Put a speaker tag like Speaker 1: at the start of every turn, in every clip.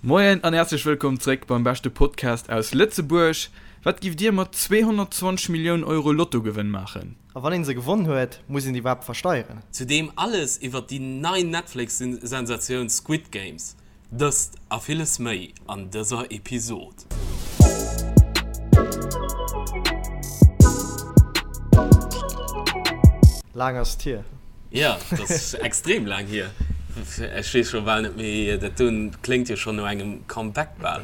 Speaker 1: Moien an häerzlech wëllkomm zréck beim beschte Podcast aus Lëtzebuerg. Wat giff dir mat 220 Milliounen Euro Lottogewënn maachen?
Speaker 2: A wann een se gewonn huet, muss een déi iwwerhaapt versteieren?
Speaker 3: Zudeem alles iwwert déi nei Netflix-Sensatioun Squid Games. Dëst a villes méi an dëser Episod.
Speaker 2: Laang ass et hier.
Speaker 3: Jo, dat ass extrem laang hier. Ech weess scho bal net méi, dat do kléngt jo schonn no engem Comeback bal.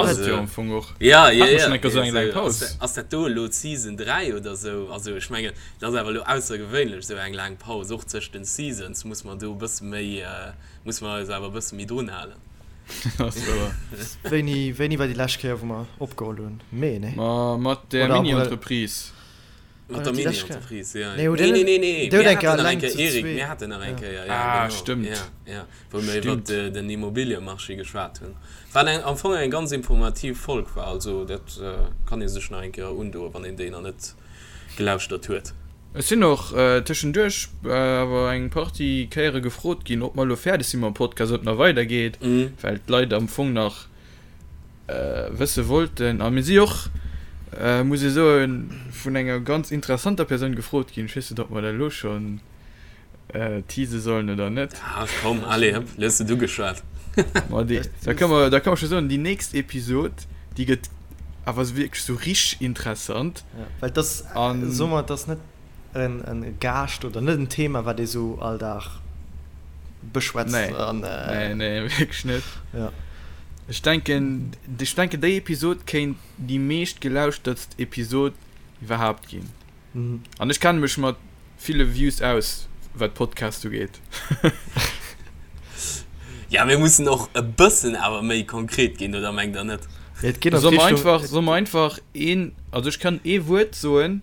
Speaker 1: Ass et jo am Fong och.
Speaker 3: Ja, ja, ja. Hatt esou eng laang Paus. Ass dat do elo d'Season 3 oder sou? Also ech mengen, dat ass awer elo aussergewéinlech, esou eng laang Paus. Och tëscht den Seasons muss mer do e bësse méi, muss mer eis awer e bësse méi drun halen.
Speaker 1: Ass wouer.
Speaker 2: Wéini, wéini war déi lescht Kéier, wou mer opgeholl hunn? Mee, nee?
Speaker 1: Ma mat der Mini-Entreprise.
Speaker 3: Mat der Mini-Entreprise, ja. Nee, nee, nee, nee. Mir haten nach eng Kéier, Eric, mir haten nach eng Kéier, ja,
Speaker 1: ah, genau. Stimmt.
Speaker 3: Ja, ja. Wou mir iwwer den Immobiliemarché geschwat hunn. Wat eng, am Fong eng ganz informativ Folg war. Also dat kann ee sech nach eng Kéier undoen, wann een déi nach net gelauschtert huet.
Speaker 1: Ech sinn och tëschenduerch awer eng Partie Kéiere gefrot ginn, ob mer elo fäerdeg si mam Podcast, ob et nach weidergeet, well d'Leit am Fong nach wësse wollten. A mir si och, muss ee soen, vun enger ganz interessanter Persoun gefrot ginn. Ech weess net, ob mer dat elo schonn tease sollen oder net.
Speaker 3: Ah komm, allez, hëpp, elo hues de et ugeschwat.
Speaker 1: Ma déi, da ka mer, da ka mer scho soen, déi nächst Episod, déi gëtt awer wierklech sou richteg interessant.
Speaker 2: Ja, well et ass, soe mer, et ass net en Gaascht oder net en Thema, wat ee sou all Dag beschwätzt.
Speaker 1: Nee, an, äh, nee, nee, wierklech net.
Speaker 2: Ja.
Speaker 1: Ech denken, ech denken, déi Episod kéint déi meescht gelauschtertst Episod iwwerhaapt ginn. Mhm. An ech kenne mech mat ville Views aus, wat Podcast ugeet.
Speaker 3: Ja, mir mussen och e bëssen awer méi konkret ginn, oder mengt der net?
Speaker 2: Et geet an
Speaker 1: Soll mer
Speaker 2: d'Richtung.
Speaker 1: einfach, soll mer einfach een, also ech kann ee Wuert soen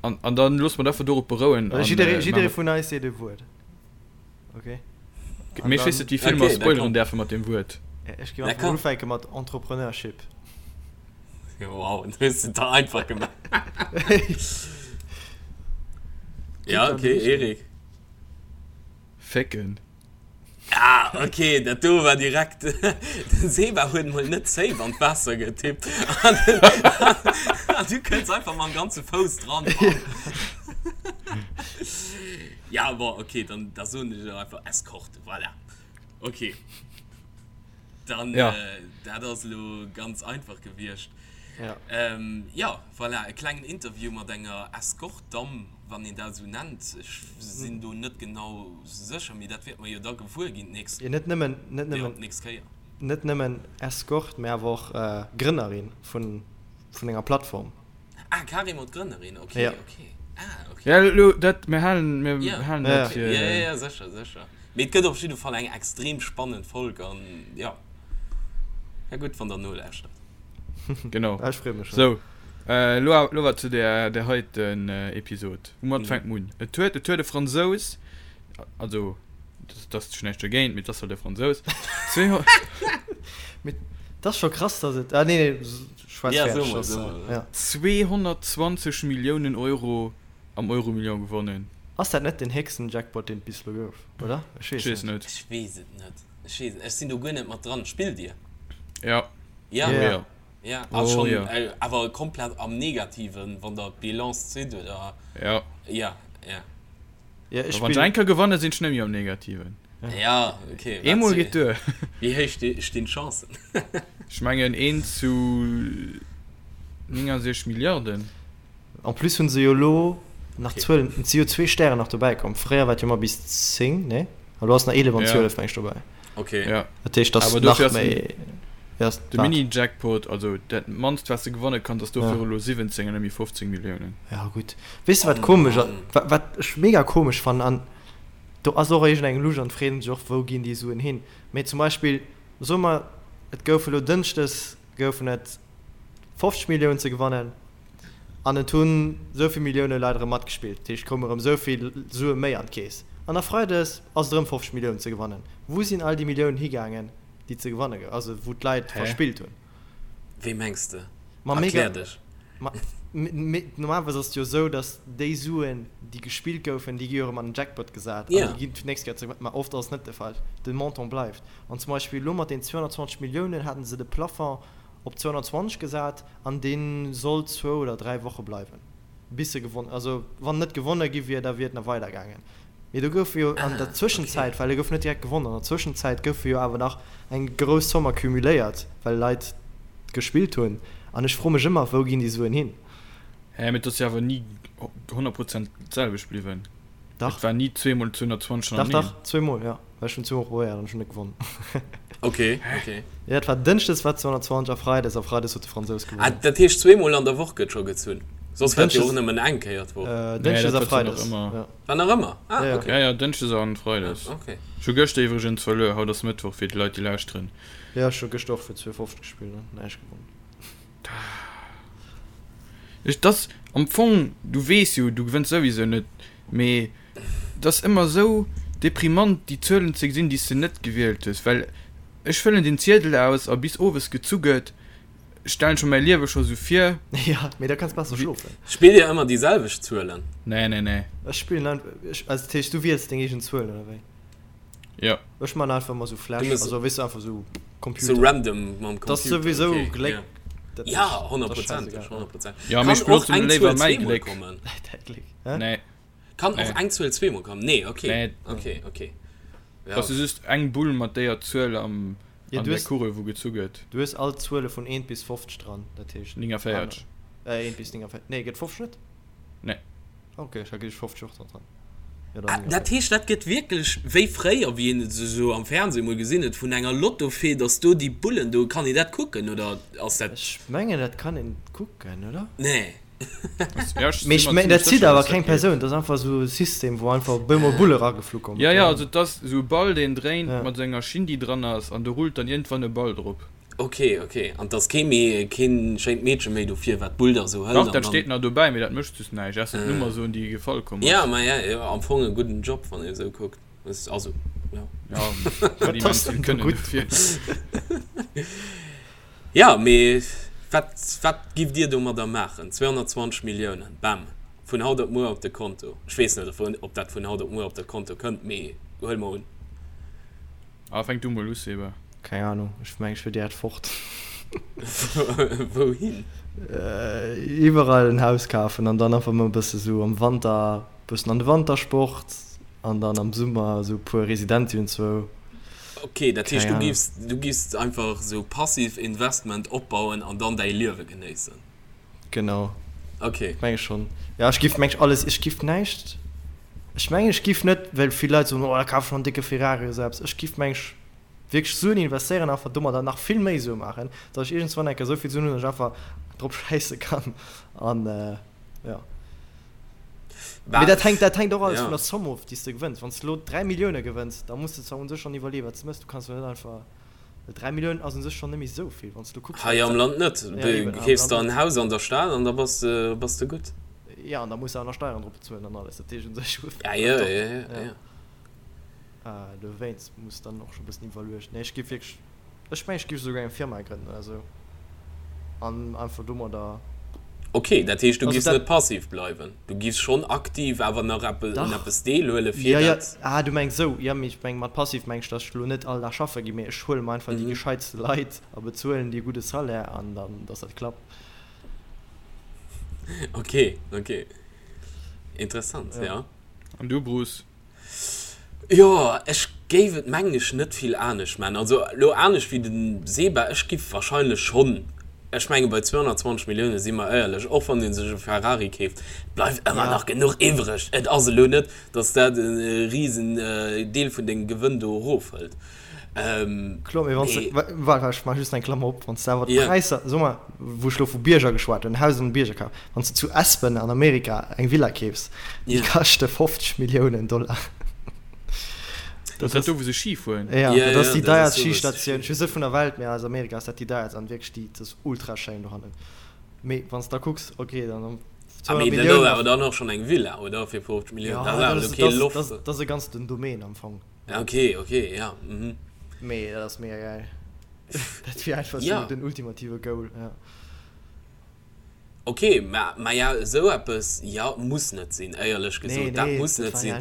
Speaker 1: an, an dann loosse mer dat einfach dorop berouen.
Speaker 2: An, Jidderee, jidderee vun eis seet e Wuert. Okay.
Speaker 1: Mee ech weess net, wéi vill mer spoileren däerfe mat deem Wuert.
Speaker 2: Ech géif einfach mol ufänke mat Entrepreneurship.
Speaker 3: Wow, du hues et der einfach gemaach. Ja, okay, Eric.
Speaker 1: Fécken.
Speaker 3: Ah, okay, dat do war direkt. Den Seba huet mol net safe an d'Waasser getippt. An, an du kënns einfach mam ganze Fouss dran. Ja, bon, okay, dann da soen ech einfach Eskorte, voilà. Okay. Dann,
Speaker 1: Ja.
Speaker 3: äh, dat ass elo ganz einfach gewiescht.
Speaker 2: Ja.
Speaker 3: Ähm, ja, voilà, e klengen Interview mat enger Escort-Damm, wann een dat esou nennt. Ech sinn do net genau sécher, mee dat wäerte mer jo da gewuer ginn d'nächst,
Speaker 2: Ja, net nëmmen, net
Speaker 3: ja,
Speaker 2: nëmmen,
Speaker 3: d'nächst Kéier.
Speaker 2: net nëmmen Escort, mä awer och äh, Grënnerin vun, vun enger Plattform.
Speaker 3: Ah, carrément d'Grënnerin, ok,
Speaker 2: Ja.
Speaker 3: ok. Ah, ok.
Speaker 1: Ja, elo, dat, mir halen, mir
Speaker 3: Ja.
Speaker 1: halen
Speaker 2: Ja,
Speaker 1: dat fir.
Speaker 3: Ja, ja, ja, sécher, sécher. Mee et gëtt op jidde Fall eng extrem spannend Folg an ja, ja gutt, wann der nolauschtert.
Speaker 1: Genau.
Speaker 2: Ah, ech freeë mech schon.
Speaker 1: Sou, elo, elo awer zu där, där heiten Episod. Woumat fänkt mer un? Et huet, et huet e Fransous, also, dat ass schon näischt dogéint, mee et ass halt e Fransous,
Speaker 2: Mee et ass scho krass, dass et, ah nee, nee, schwätz
Speaker 3: Ja,
Speaker 2: fäerdeg,
Speaker 3: so mol,
Speaker 2: soss,
Speaker 3: so mol.
Speaker 2: ja.
Speaker 1: 220 Milliounen Euro am Euromillion gewonnen.
Speaker 2: Ass dat net den héchsten Jackpot, deen et bis elo gouf, oder? Ech
Speaker 1: Ech
Speaker 2: weess
Speaker 1: weess
Speaker 2: net.
Speaker 1: net.
Speaker 3: Ech weess et net. Ech weess et, ech sinn do guer net mat dran. Spillt dir?
Speaker 1: Ja.
Speaker 3: Ja?
Speaker 1: Oh ja.
Speaker 3: Ja, a
Speaker 1: Oh
Speaker 3: schonn
Speaker 1: ja.
Speaker 3: awer komplett am Negativen, wann der d'Bilance zitt, oder?
Speaker 1: Ja.
Speaker 3: Ja, ja.
Speaker 2: Ja, ech
Speaker 1: Wann ech
Speaker 2: spillen.
Speaker 1: eng Kéier gewannen, sinn ech net méi am Negativen.
Speaker 3: Ja, okay. Wat
Speaker 1: Eemol geet duer.
Speaker 3: Wéi héich stinn d'Chancen?
Speaker 1: Ech mengen 1 zu 69 Milliarden.
Speaker 2: En plus hunn se jo elo nach
Speaker 3: Okay.
Speaker 2: 12, et si jo zwee Stären nach dobäi komm. Fréier war et jo ëmmer bis 10, nee? A lo ass nach 11 an
Speaker 1: Ja.
Speaker 2: 12 meng ech dobäi.
Speaker 3: Okay.
Speaker 1: Ja.
Speaker 2: Dat heescht, dass
Speaker 1: Awer
Speaker 2: nach
Speaker 1: dofir ass
Speaker 2: méi. Ja, ass
Speaker 1: de
Speaker 2: wat?
Speaker 1: Mini-Jackpot, also dat mannst wat s de gewanne kanns, ass dofir
Speaker 2: Ja.
Speaker 1: elo 17 an net méi 15 Milliounen.
Speaker 2: Ja gutt. Weess de wat
Speaker 3: Oh
Speaker 2: komesch ass,
Speaker 3: Mann.
Speaker 2: wat, wat ech mega komesch fannen an do ass och iergend eng Lusch an freet sech och wou ginn déi Suen hin. Mee zum Beispill soe mer et gouf elo Dënschdes goufen et 50 Milliounen ze gewannen an et hunn esou vill Millioune Leit erëm matgespillt, dat heescht et koume erëm esou vill Sue méi an d'Keess. An da Freides ass et erëm 50 Milliounen ze gewannen. Wou sinn all déi Milliounen higaangen déi ze gewanne gou, also wou d'Leit
Speaker 1: Hä?
Speaker 2: verspillt hunn?
Speaker 3: Wéi mengs de?
Speaker 2: Ma mega,
Speaker 3: Erklär dech.
Speaker 2: ma. Normalerweis ass et jo esou, datt déi Suen, déi gespillt goufen, déi gi jo erëm an den Jackpot gesat an déi ginn fir d'nächst Kéier zeréck. Mä oft ass et net de Fall. De Montant bleift. An zum Beispill elo mat den 220 Milliounen haten se de Plafond op 220 gesat an dee sollt zwou oder dräi Woche bleiwen, bis se gewonn, also wann net gewonne gi wier, da wier et nach weider gaangen. Mee do goufe jo an der Zwëschenzäit, well e gouf net direkt gewonnen, an der Zwëschenzäit goufe jo awer nach eng grouss Zomm accumuléiert, well Leit gespillt hunn. An ech froe mech ëmmer, wou ginn déi Suen hin?
Speaker 1: Hä, mee et ass jo awer ni 100 Prozent d'selwecht bliwwen.
Speaker 2: Dach.
Speaker 1: Et war ni zweemol 220
Speaker 2: Dach, dach, zweemol, jo. Well ech hunn zweemol probéiert an ech hunn net gewonnen.
Speaker 3: Ok, ok.
Speaker 2: Jo, et war Dënschdes war 220 a Freides, a Freides huet de Fransous
Speaker 3: gewonnen. Ah, dat heescht zweemol an der Woch gëtt scho gezunn? Soss war et jo och nëmmen eng Kéier d'Woch.
Speaker 2: Dënschdes a Freides, jo.
Speaker 3: War nach ëmmer? Ah,
Speaker 1: ok. Ja, ja, Dënschdes an Freides.
Speaker 3: Ah, ok.
Speaker 1: Ech hu gëschter iwwregens verluer. Haut ass Mëttwoch fir déi Leit, déi lauschteren.
Speaker 2: Jo, ech hu gëschter och fir 2,50 gespillt an näischt gewonnen.
Speaker 1: Ech, dass am Fong, du weess jo, du gewënns souwisou net, mee et ass ëmmer esou deprimant, déi Zuelen ze gesinn, déi s de net gewielt hues, well ech fëllen den Ziedel aus a bis owes gezu gëtt, stellen scho mäi Liewe scho sou vir.
Speaker 2: Jo, mee da kanns besser schlofen.
Speaker 3: Spillt dir ëmmer déi selwecht Zuelen?
Speaker 1: Nee, nee, nee.
Speaker 2: Ech spillen einfach, ech, also dat heescht du wiels deng eegen Zuelen oder wéi?
Speaker 1: Jo.
Speaker 2: Ech man einfach ëmmer sou Flash, also weess du einfach sou
Speaker 3: Computer. Sou random mam
Speaker 2: Computer. Dat ass souwisou Gléck.
Speaker 3: Ja, honnertprozenteg, honnertprozenteg.
Speaker 1: Jo, mee ech benotzen léiwer mäi Gléck.
Speaker 2: Däi Gléck, hä?
Speaker 1: Nee.
Speaker 3: Kann och eng Zuel zweemol kommen? Nee, ok. Nee. Ok, ok.
Speaker 1: Ja. Ass just eng Bull mat déier Zuel am
Speaker 2: Ja,
Speaker 1: an
Speaker 2: du
Speaker 1: der
Speaker 2: hues,
Speaker 1: Kugel wou gezu gëtt.
Speaker 2: du hues all d'Zuele vun 1 bis 50 dran, dat heescht
Speaker 1: 49.
Speaker 2: aner, äh, 1 bis 49, nee, gëtt 50 net?
Speaker 1: Nee.
Speaker 2: Ok, ech hat geduecht 50 och dran dran.
Speaker 3: Ja, dann Ah, dat
Speaker 2: 49.
Speaker 3: heescht, dat gëtt wierklech wéi fréier, wéi een et esou am Fernseh mol gesinn huet, vun enger Lottofee, dass do déi Bullen do, kann een dat kucken oder ass dat.
Speaker 2: Ech mengen, dat kann een kucken, oder?
Speaker 3: Nee.
Speaker 2: Mee ech mengen, dat zitt awer keng Persoun, dat ass einfach esou e System, wou einfach op eemol Bulle rageflu kommen.
Speaker 1: Jo, jo, also et ass esou e Ball, deen dréint, mat esou enger Schinn, déi dran ass, an do rullt dann iergendwann e Ball drop.
Speaker 3: Ok, ok. An et ass kee méi, keen schéint Meedche méi dofir, wat d'Bull da esou hëlt
Speaker 1: Dach,
Speaker 3: an
Speaker 1: dat
Speaker 3: dann.
Speaker 1: steet nach dobäi, mee dat mécht just näischt, ausser d'Nummer soen, déi gefall komm
Speaker 3: Jo,
Speaker 1: ass.
Speaker 3: ma jo, jo, am Fong e gudden Job, wann ee esou kuckt. Also, jo.
Speaker 1: Jo, net immens vill kënnen dofir.
Speaker 3: Jo, mee wat, wat giff Dir domadder maachen? 220 Milliounen, bam, vun haut op muer op de Konto. Ech weess net, ob dat vun haut op muer op de Konto kënnt, mee huele mer un.
Speaker 1: Ah, fänk du mol u, Seba.
Speaker 2: Keng Ahnung, ech mengen, ech wier direkt fort.
Speaker 3: Wouhin?
Speaker 2: Iwwerall en Haus kafen an dann einfach mol e bësse sou am Wanter, bëssen an de Wantersport an dann am Summer sou e puer Residenzien zwou.
Speaker 3: Ok, dat heescht du giffs, du giffs einfach sou passiv Investment opbauen an dann däi Liewe genéissen?
Speaker 2: Genau.
Speaker 3: Ok.
Speaker 2: Meng ech schonn. Ja, ech giff meng ech alles, ech giff näischt, ech mengen ech giff net, well vill Leit soen, oh da kaf ech mer en décke Ferrari oder sou eppes, ech giff meng ech wierklech Suen investéieren, einfach domadder nach vill méi Sue maachen, datt ech iergendswann eng Kéier esou vill Suen hunn, datt ech einfach drop schäisse kann an jo. Mee dat hänkt, dat hänkt och alles vun der Somme of, déi s de gewënns. Wann s de elo 3 Millioune gewënns, da muss de zwar un sech schonn iwwerleeën, wat s de méchs. Du kanns jo net einfach, well 3 Milliounen ass un sech schonn net méi esou vill, wann s de elo kucks,
Speaker 3: Hei am Land net. Du keefs der en Haus an der Stad an da bass de, bass de gutt.
Speaker 2: Jo, an da muss de awer nach Steieren drop bezuelen an alles. Dat heescht un sech hues
Speaker 3: Ja, jo, jo, jo, jo.
Speaker 2: Dowéinst muss dann och scho bëssen iwwerluecht. Nee, ech géif wierklech. Ech mengen ech géif esouguer eng Firma grënnen oder esou an einfach domadder.
Speaker 3: Ok, dat heescht du giffs net passiv bleiwen, du giffs schonn aktiv awer nach eppes un eppes deelhuele fir
Speaker 2: dat. Jo, jo, ah du mengs esou, jo mee ech meng mat passiv meng ech, datt ech elo net all Dag schaffe ginn, mee ech huele mer einfach déi gescheitste Leit a bezuelen déi e gudde Salaire an dann datt dat klappt.
Speaker 3: Ok, ok, interessant, jo.
Speaker 1: An du Bruce?
Speaker 3: Jo, ech géif et mengen ech net vill anescht man. Also elo anescht wéi den Seba, ech giff wahrscheinlech schonn, ech menge bei 220 Millioune si mer éierlech, och wann ee sech e Ferrari keeft, et bleift ëmmer nach genuch iwwreg. Et ass elo net, datt dat e risen Deel vun dengem Gewënn do erofhëlt.
Speaker 2: Kloer, mee wann s de, waart, ech maache just eng Klammer op, wann s de awer d'Präisser, soe mer, wou ech elo vu Bierger geschwat hunn, Haus an de Bierger kaf, wann s de zu Aspen an Amerika eng Villa keefs, déi kaschte 50 Milliounen Dollar.
Speaker 1: Dat ass dat do, wou se Ski fueren?
Speaker 2: Jo, dat ass déi deierst Schistatioun, ech weess net vun der Welt, mee aus Amerika ass dat déi deierst an wierklech déi, dat ass ultra schéin dohannen. Mee wann s de da kucks, ok, dann
Speaker 3: 200 Milliounen. Mee dat ass awer dann och schonn eng Villa, oder, fir 50 Milliounen?
Speaker 2: Dat ass awer elo kee Loft. Dat ass e ganzen Domaine am Fong.
Speaker 3: Ok, ok, ja. Mhm.
Speaker 2: Mee dat ass mega geil. Dat wier einfach ja. so den ultimative Goal. Ja.
Speaker 3: Ok, mä, maja, esou eppes, jo, muss net sinn, éierlech gesot, dat muss net sinn,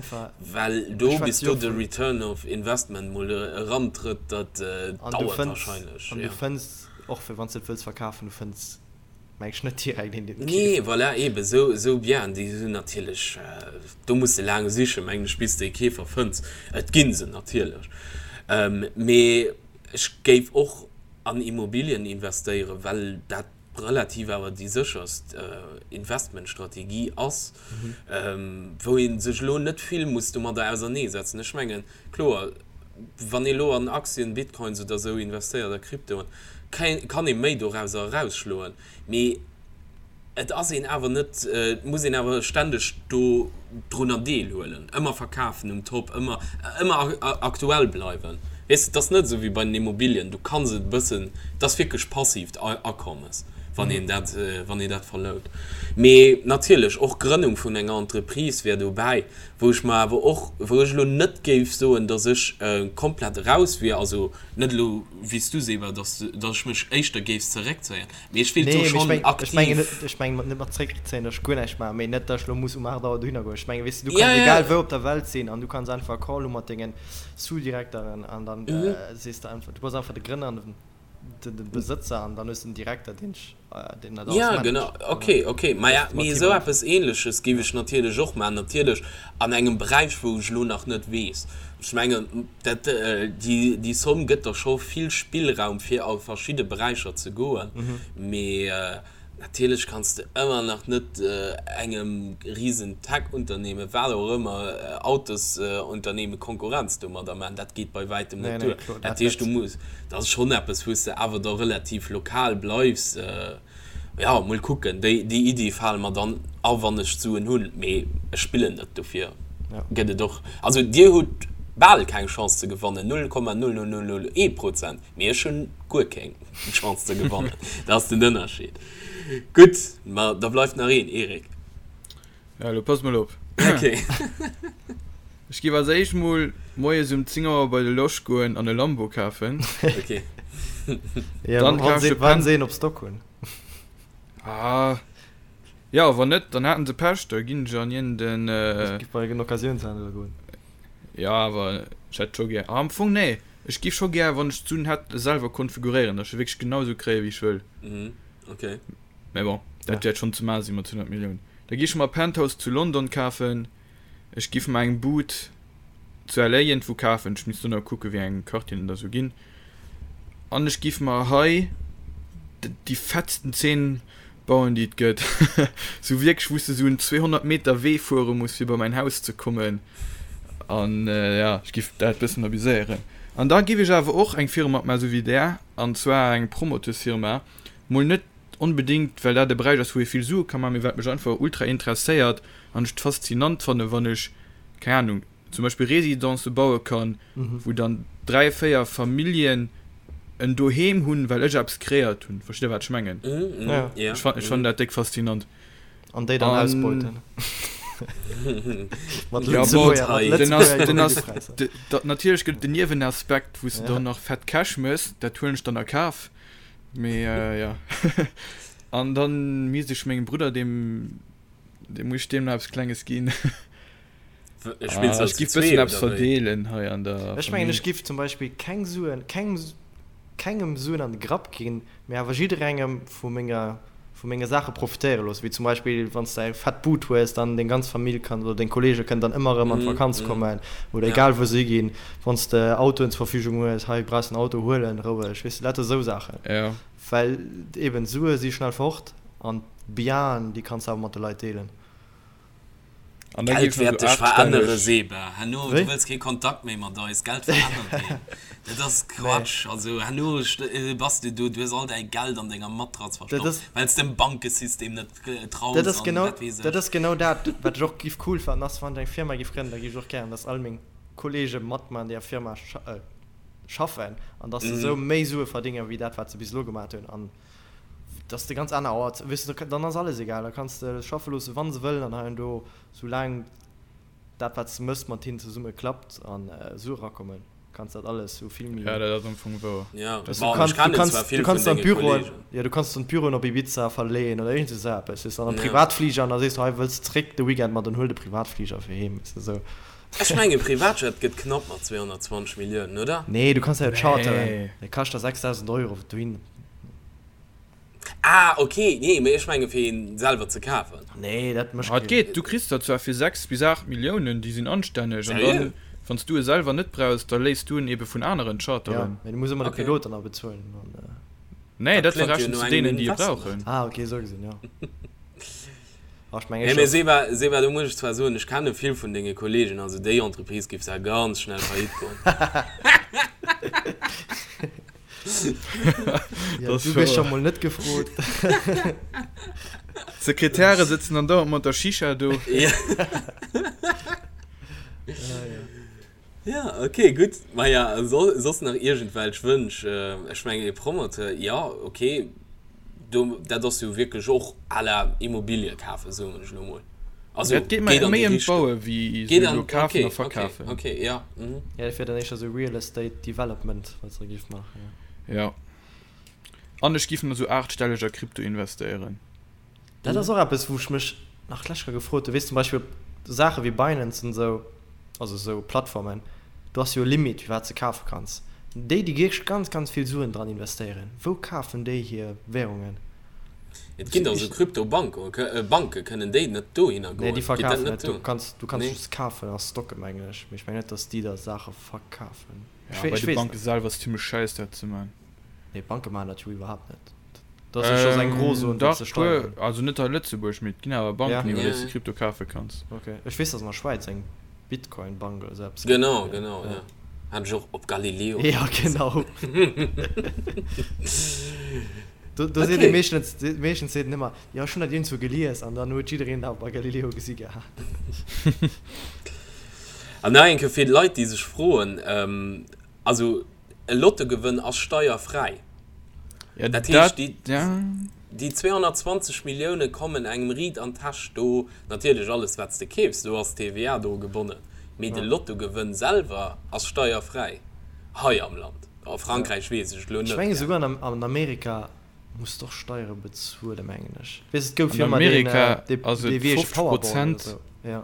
Speaker 3: well do, bis do de Return of Investment mol erantrëtt, dat dauert
Speaker 2: wahrscheinlech. An du fënns, och fir wann s de et wëlls verkafen, du fënns, meng ech, net direkt een,
Speaker 3: deen et keeft. Nee, voilà, eeben, esou, esou Bieren, déi sinn natierlech, do muss de laang sichen, mengen ech, bis de e Keefer fënns. Et gi se natierlech, mee ech géif och an Immobilien investéieren, well dat relativ awer déi sécherst Investmentstrategie ass, wou ee sech elo net vill muss domadder auserneesetzen. Ech mengen, kloer, wann ee elo an Aktien, Bitcoins oder esou investéiert, a Kryptoen, kann ee méi dorauser erausschloen, mee et ass een awer net, et muss een awer ständeg do drunner deelhuelen, ëmmer verkafen um Top, ëmmer, ëmmer aktuell bleiwen. Weess de, et ass net esou wéi bei den Immobilien, du kanns et e bëssen, et ass wierklech passiivt Akommes, wann een dat, wann een dat verlount. Mee natierlech, och Grënnung vun enger Entreprise wär dobäi, wou ech mer awer och, wou ech elo net géif soen, datt ech komplett eraus wier, also net elo wéi s du, Seba, datt, datt ech mech éischter géif zeréckzéien. Mee ech wéilt do schonn
Speaker 2: aktiv. Ech mengen net, ech mengen net mat zréckzéien, datt ech guer näischt maachen, mee net, datt ech elo muss um 8 Auer dohinner goen. Ech mengen, weess de, du kanns egal wou op der Welt sinn an du kanns einfach e Call hu mat dengen Sous-Direkteren an dann sees de einfach, du bass einfach de Grënner an de Besëtzer an dann hues de en Direkter, deen deen
Speaker 3: dat alles managt. Ja, genau, ok, ok. Maja, mee esou eppes Ähnleches géif ech natierlech och maachen, natierlech an engem Beräich, wou ech elo nach net weess. Ech mengen, dat, déi, déi Somm gëtt der scho vill Spillraum, fir a verschidde Beräicher ze goen. Mee natierlech kanns de ëmmer nach net engem risen Tech-Unternehmen, wat och ëmmer, Autosunternehmen Konkurrenz domadder maachen. Dat geet bei wäitem net duer. Dat heescht, du muss, dat ass schonn eppes, wou s de awer da relativ lokal bleifs. Jo, mol kucken, déi Iddi fale mer dann a wann ech d'Suen hunn, mee ech spillen net, dofir gëtt et och, also dir hutt bal keng Chance ze gewannen, 0,00001 Prozent, mee ech hunn guer keng Chance ze gewannen, dat ass den Ënnerscheed. Gutt, ma da bleift nach een, Eric.
Speaker 1: Ja, elo pass mol op.
Speaker 3: Ok.
Speaker 1: Ech giff als éischt mol moies um 10 Auer bei de Losch goen an e Lambo kafen.
Speaker 3: Ok.
Speaker 2: Ja, Dann wann se, wann se een op Stock hunn.
Speaker 1: Ah. Ja, wann net, dann haten se Pech, da ginn ech an iergend
Speaker 2: Ech giff bei en Occasiounshändler goen.
Speaker 1: Ja, awer ech hätt scho gär, ah, am Fong nee, ech giff scho gär, wann ech d'Suen hätt, e selwer konfiguréieren, datt ech e wierklech genau esou kréie wéi ech wëll.
Speaker 3: Mhm, ok.
Speaker 1: Mä bon, dat wäert schonn ze maache si mat 100 Milliounen. Da gi ech mer e Penthouse zu London kafen. Ech giff mer eng Bud zu LA iergendwou kafen. Ech misst do nach kucken, wéi eng Quartieren et da sou ginn. An ech giff mer hei déi fettsten Zeen bauen, déi et gëtt. Sou wierklech, wou s de sou en 200 Meter Wee fuere muss, fir bei mäin Haus ze kommen. An ja, ech giff dat bëssen abuséieren. An da giff ech awer och eng Firma opmaachen, sou wéi där, an zwar eng Promoteursfirma. Mol net onbedéngt, well dat e Beräich ass, wou ee vill Sue ka maachen, mee wat mech einfach ultra interesséiert an ech et faszinant fannen, wann ech, keng Ahnung, zum Beispill Residencë baue kann, wou dann 3, 4 Familljen en Doheem hunn, well ech eppes kreéiert hunn. Verstitt Der, wat ech mengen? Ech fannen dat déck faszinant.
Speaker 2: An déi dann ausbeuten.
Speaker 1: Mat Lëtzebuerger Immobiliëpräisser. Natierlech gëtt et den Niewenaspekt, wou s de dann nach fett Cash méchs, dat huelen ech dann a Kaf. Mee jo. An dann misst ech mengem Brudder, deem, deem muss ech deem nach eppes Klenges ginn.
Speaker 3: Spills du
Speaker 1: Ech
Speaker 3: zu
Speaker 1: giff
Speaker 3: zwee
Speaker 1: bëssen eppes
Speaker 3: oder wéi?
Speaker 1: verdeelen hei an der
Speaker 2: Ech mengen
Speaker 1: Famill.
Speaker 2: ech giff zum Beispill keng Suen, keng, kengem Suen an de Grapp ginn, mee awer jidderengem vu menger, vu menge Saache profitéiere loossen, wéi zum Beispill wann s de eng fett Bud hues, dann deng ganz Famill kann oder deng Kollege kënnen dann ëmmer erëm an d'Vakanz kommen oder egal wou se higinn. Wann s de Autoen zur Verfügung hues, hei brauchs en Auto, huel en roueg, weess de, lauter esou Saachen. Well eben Sue si schnell fort an d'Bienen, déi kanns de awer mat de Leit deelen.
Speaker 1: An da
Speaker 3: Geld
Speaker 1: géif
Speaker 3: wäert
Speaker 1: nach
Speaker 3: dech
Speaker 1: sou
Speaker 3: verännere,
Speaker 1: aachtstelleg.
Speaker 3: Seba. Herno, du
Speaker 2: Wéi?
Speaker 3: wëlls kee Kontakt méi mat eis. Geld verännert een. Dat ass
Speaker 2: Nee.
Speaker 3: Quatsch. Also herno bass du do, du hues all däi Geld an denger Matratz
Speaker 2: Dat
Speaker 3: verstoppt,
Speaker 2: ass,
Speaker 3: well s dem Bankesystem net
Speaker 2: dat
Speaker 3: traus
Speaker 2: ass
Speaker 3: an
Speaker 2: genau,
Speaker 3: wat weess
Speaker 2: dat
Speaker 3: ech.
Speaker 2: ass genau dat, wat ech och giff cool fannen, ass, wann ech eng Firma giff grënnen, da giff ech och gären, dass all meng Kollege mat mer an deeër Firma schaffen an dass se esou méi Sue verdéngen, wéi dat, wat se bis elo gemat hunn. An dass de ganz aner Auer, weess de, dann ass alles egal, da kanns de schaffe loosse wann se wëllen an hei an do, soulaang dat wat s de mëss mat hinnen zesumme klappt an Sue erakommen. Kanns dat alles sou vill méi.
Speaker 1: Ja, dat ass am Fong wouer.
Speaker 3: Ja,
Speaker 2: du
Speaker 3: bon,
Speaker 2: kanns,
Speaker 3: ech kennen
Speaker 2: du kanns,
Speaker 3: zwar
Speaker 2: du
Speaker 3: vill
Speaker 2: kanns
Speaker 3: vun
Speaker 2: dann
Speaker 3: denge
Speaker 2: d'Büroen,
Speaker 3: Kollegen.
Speaker 2: ja, du kanns dann d'Büroen op Ibiza verleeën oder iergend esou eppes, weess de, an e
Speaker 3: Ja.
Speaker 2: Privatfliger an da sees du, hei wëlls zréck de Weekend, ma dann huel de Privatfliger fir heem, weess de, sou.
Speaker 3: Ech mengen Privatjet gëtt knapp mat 220 Milliounen, oder?
Speaker 2: Nee, du kanns der jo charteren,
Speaker 1: Nee.
Speaker 2: dee kascht der 6.000 Euro dohin.
Speaker 3: Ah ok, nee mee ech menge fir een selwer ze kafen.
Speaker 2: Nee, dat mécht
Speaker 1: Ah, et
Speaker 2: keen.
Speaker 1: geet, du kriss der zwar fir 6 bis 8 Milliounen, déi sinn anstänneg, an
Speaker 3: Seriö?
Speaker 1: dann, wann s du e selwer net brauchs, da léiss du en ebe vun aneren
Speaker 2: Ja,
Speaker 1: charteren.
Speaker 2: mee du muss ëmmer de
Speaker 3: Ok.
Speaker 2: Pilot dann nach bezuelen an.
Speaker 1: Nee,
Speaker 3: Dat
Speaker 1: dat
Speaker 3: kléngt jo
Speaker 1: verrechens
Speaker 3: no
Speaker 1: du
Speaker 3: engem
Speaker 1: deenen, déi e
Speaker 3: Investment.
Speaker 1: brauchen.
Speaker 2: Ah ok, esou gesinn, jo. Ah, ech mengen
Speaker 3: Nee, mee
Speaker 2: scho.
Speaker 3: Seba, Seba, do muss ech zwar soen, ech kenne vill vun denge Kollegen, also déi Entreprise géif zwar ganz schnell faillite goen.
Speaker 2: Ja, du gëss scho mol net gefrot.
Speaker 1: D'Sekretäre sëtzen dann dauernd mat der Shisha do.
Speaker 3: Ja. Ja, okay, gutt. Maja, so, soss nach iergendwelch Wënsch? Ech mengen, e Promoteur, ja, okay, do, dat ass jo wierklech och à la Immobilie kafen, soen ech elo mol. Also,
Speaker 1: Et geet mer
Speaker 3: geet an
Speaker 1: méi
Speaker 3: déi
Speaker 1: ëm
Speaker 3: Richtung.
Speaker 1: d'Baue wéi
Speaker 3: Geet
Speaker 1: esou
Speaker 3: an,
Speaker 1: elo kafen
Speaker 3: okay,
Speaker 1: a
Speaker 3: okay,
Speaker 1: verkafen.
Speaker 3: okay, ja, mhm.
Speaker 2: Ja, dat wier dann éischter esou Real Estate Development, wat se da géif maachen, ja.
Speaker 1: Ja. An ech giff nach esou aachtstelleg a Krypto investéieren.
Speaker 2: Dat ass och eppes, wou ech mech nach d'lescht Kéier gefrot hunn. Weess, zum Beispill op Saache wéi Binance an esou, also esou Plattformen, do ass jo e Limit, wéi wat s de kafe kanns. Déi, déi wierklech ganz, ganz vill Suen dran investéieren, wou kafen déi hir Währungen?
Speaker 3: Et ginn der esou Kryptobanken, Banke, kënnen déi net dohinner
Speaker 2: Nee,
Speaker 3: goen?
Speaker 2: déi
Speaker 3: Geet dat
Speaker 2: verkafen
Speaker 3: net
Speaker 2: net. Du
Speaker 3: do?
Speaker 2: kanns, du kanns
Speaker 3: Nee?
Speaker 2: just kafen a stocken, mengen ech. Mee ech mengen net, datt déi der Saache verkafen.
Speaker 1: Ja,
Speaker 2: Ech
Speaker 1: bei
Speaker 2: weess, ech
Speaker 1: de
Speaker 2: weess
Speaker 1: Banke
Speaker 2: net.
Speaker 1: selwer ass et zimmlech schäiss dat ze man.
Speaker 2: Nee, d'Banke maachen dat jo iwwerhaapt net. Dat ass jo schonns eng Grozon, fir
Speaker 1: Dach,
Speaker 2: ze
Speaker 1: puer,
Speaker 2: steieren.
Speaker 1: also net hei Lëtzebuerg, mee et ginn awer
Speaker 2: Ja.
Speaker 1: Banken, iwwer déi s
Speaker 3: Ja,
Speaker 1: de Krypto kafe kanns.
Speaker 2: Ok. Ech weess, datt an der Schwäiz eng Bitcoin-Bank oder sou eppes gëtt.
Speaker 3: Genau,
Speaker 2: Ja,
Speaker 3: genau,
Speaker 2: ja.
Speaker 3: ja. Hat ech och op Galileo
Speaker 2: Ja,
Speaker 3: gelies.
Speaker 2: genau. Do, do seet ee
Speaker 3: Okay.
Speaker 2: meeschtens, meeschtens seet en ëmmer, jo, ech hunn dat iergendwou gelies an dann huet jiddereen dat bei Galileo gesi gehat.
Speaker 3: An nach eng Kéier fir d'Leit, déi sech froen, also e Lottogewënn ass steierfräi.
Speaker 1: Ja,
Speaker 3: Dat heescht,
Speaker 1: dat,
Speaker 3: déi,
Speaker 1: ja.
Speaker 3: déi 220 Millioune kommen engem riit an d'Täsch. Do natierlech alles, wat s de keefs, do ass d'TVA dru gebonnen, mee de
Speaker 2: Ja.
Speaker 3: Lottogewënn selwer ass steierfräi hei am Land. A Frankräich weess ech et elo
Speaker 2: Ech
Speaker 3: net.
Speaker 2: menge souguer an, an Amerika muss d'och Steiere bezuelen, mengen ech. Weess, et gouf
Speaker 1: An
Speaker 2: jo ëmmer deen,
Speaker 1: Amerika
Speaker 2: dee,
Speaker 1: ass
Speaker 2: dee
Speaker 1: et
Speaker 2: wéi heescht
Speaker 1: 50
Speaker 2: Powerball oder
Speaker 1: Prozent,
Speaker 2: sou. Ja.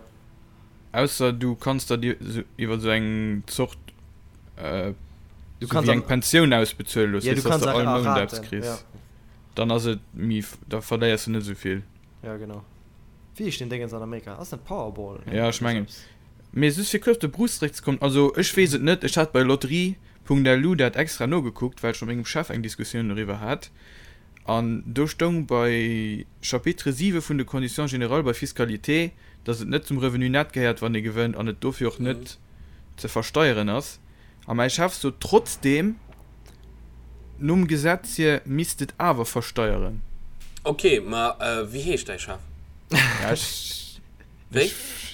Speaker 1: ausser du kanns der dir sou iwwer sou eng Zort,
Speaker 2: Du
Speaker 1: sou
Speaker 2: kanns
Speaker 1: wéi eng
Speaker 2: an,
Speaker 1: Pensioun ausbezuele looss,
Speaker 2: ja, du
Speaker 1: weess, dass
Speaker 2: kanns
Speaker 1: de
Speaker 2: a,
Speaker 1: all
Speaker 2: a
Speaker 1: Mount eppes
Speaker 2: Raten,
Speaker 1: kriss.
Speaker 2: ja.
Speaker 1: Dann ass et méi, da verléiers du net esou vill.
Speaker 2: Ja, genau. Wéi heescht deen Déngens an Amerika? Ass net Powerball, ne?
Speaker 1: Ja, ech
Speaker 2: Oder sou
Speaker 1: mengen.
Speaker 2: eppes.
Speaker 1: Mee just fir kuerz op de Bruce zeréckzekommen, also ech weess et net, ech hat bei Lotterie.lu dat extra nogekuckt, well ech mat mengem Chef eng Diskussioun doriwwer hat, an do stoung bei Chapitre 7 vun de Conditions générales bei Fiscalité, dass et net zum Revenu net gehéiert, wann ee gewënnt, an et dofir och net ze versteieren ass. A mäi Chef sot trotzdeem, nom Gesetz hier misst et awer versteieren.
Speaker 3: Ok, ma wéi heescht däi Chef?
Speaker 1: Ja, ech,
Speaker 3: Wéi?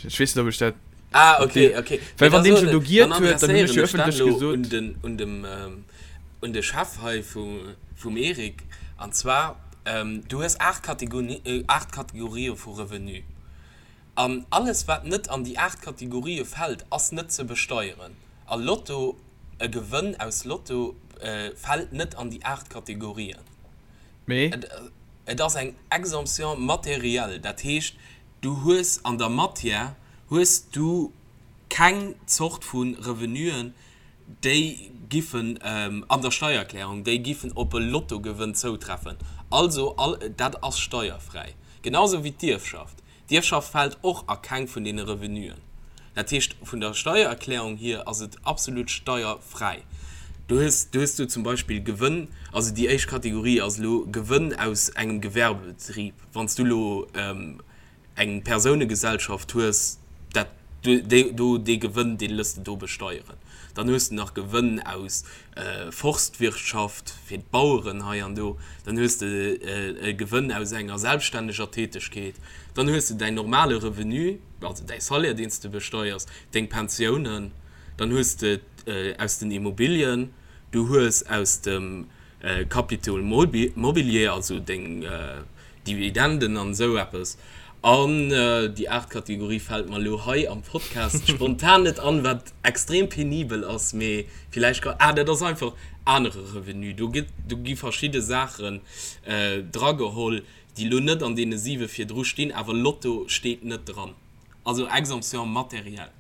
Speaker 1: ech weess net, ob ech dat.
Speaker 3: Ah, ok, ok.
Speaker 1: Well wann deen schon do giert
Speaker 3: Dann
Speaker 1: huet, dann hunn ech
Speaker 3: adresséieren
Speaker 1: jo
Speaker 3: ech dat
Speaker 1: ëffentlech
Speaker 3: elo
Speaker 1: gesot.
Speaker 3: un den, un dem, un de Chef hei vu, vum Eric. An zwar, du hues 8 Kategoni, 8 Kategorië vu Revenu. An alles wat net an déi 8 Kategorië fält, ass net ze besteieren. A Lotto, e Gewënn aus Lotto fält net an déi 8 Kategorien.
Speaker 1: Mee?
Speaker 3: Et ass eng Exemption matérielle, dat heescht, du hues an der Matière hues du keng Zort vu Revenuen, déi giffen an der Steiererklärung, déi giffen op e Lottogewënn zoutreffen. Also all dat ass steierfräi. Genau sou wéi d'Ierfschaft. D'Ierfschaft fält och a keng vun deene Revenuen. Dat heescht, vun der Steiererklärung hier ass et absolut steierfräi. Du hues, du hues do zum Beispill Gewënn, also déi éischt Kategorie ass elo Gewënn aus engem Gewerbebetrib. Wann s du elo eng Persounegesellschaft hues, dat, do, dee Gewënn, dee lëss de do besteieren. Dann hues de nach Gewënn aus Forstwirtschaft fir d'Baueren hei an do. Dann hues de e Gewënn aus enger selbststänneger Tätegkeet. Dann hues de däin normale Revenu, also däi Salaire, deen s de besteiers, deng Pensiounen. Dann hues de aus den Immobilien, du hues aus dem Capital mobilier, also deng Dividenden an esou eppes. An déi aacht Kategorie fält mer elo hei am Podcast spontan net an, wat extrem penibel ass, mee villäicht ka, ah, dat ass einfach anere Revenu. Do gëtt, do gi verschidde Saachen drageholl, déi elo net an deene siwe virdru stinn, awer Lotto steet net dran. Also Exemption matérielle.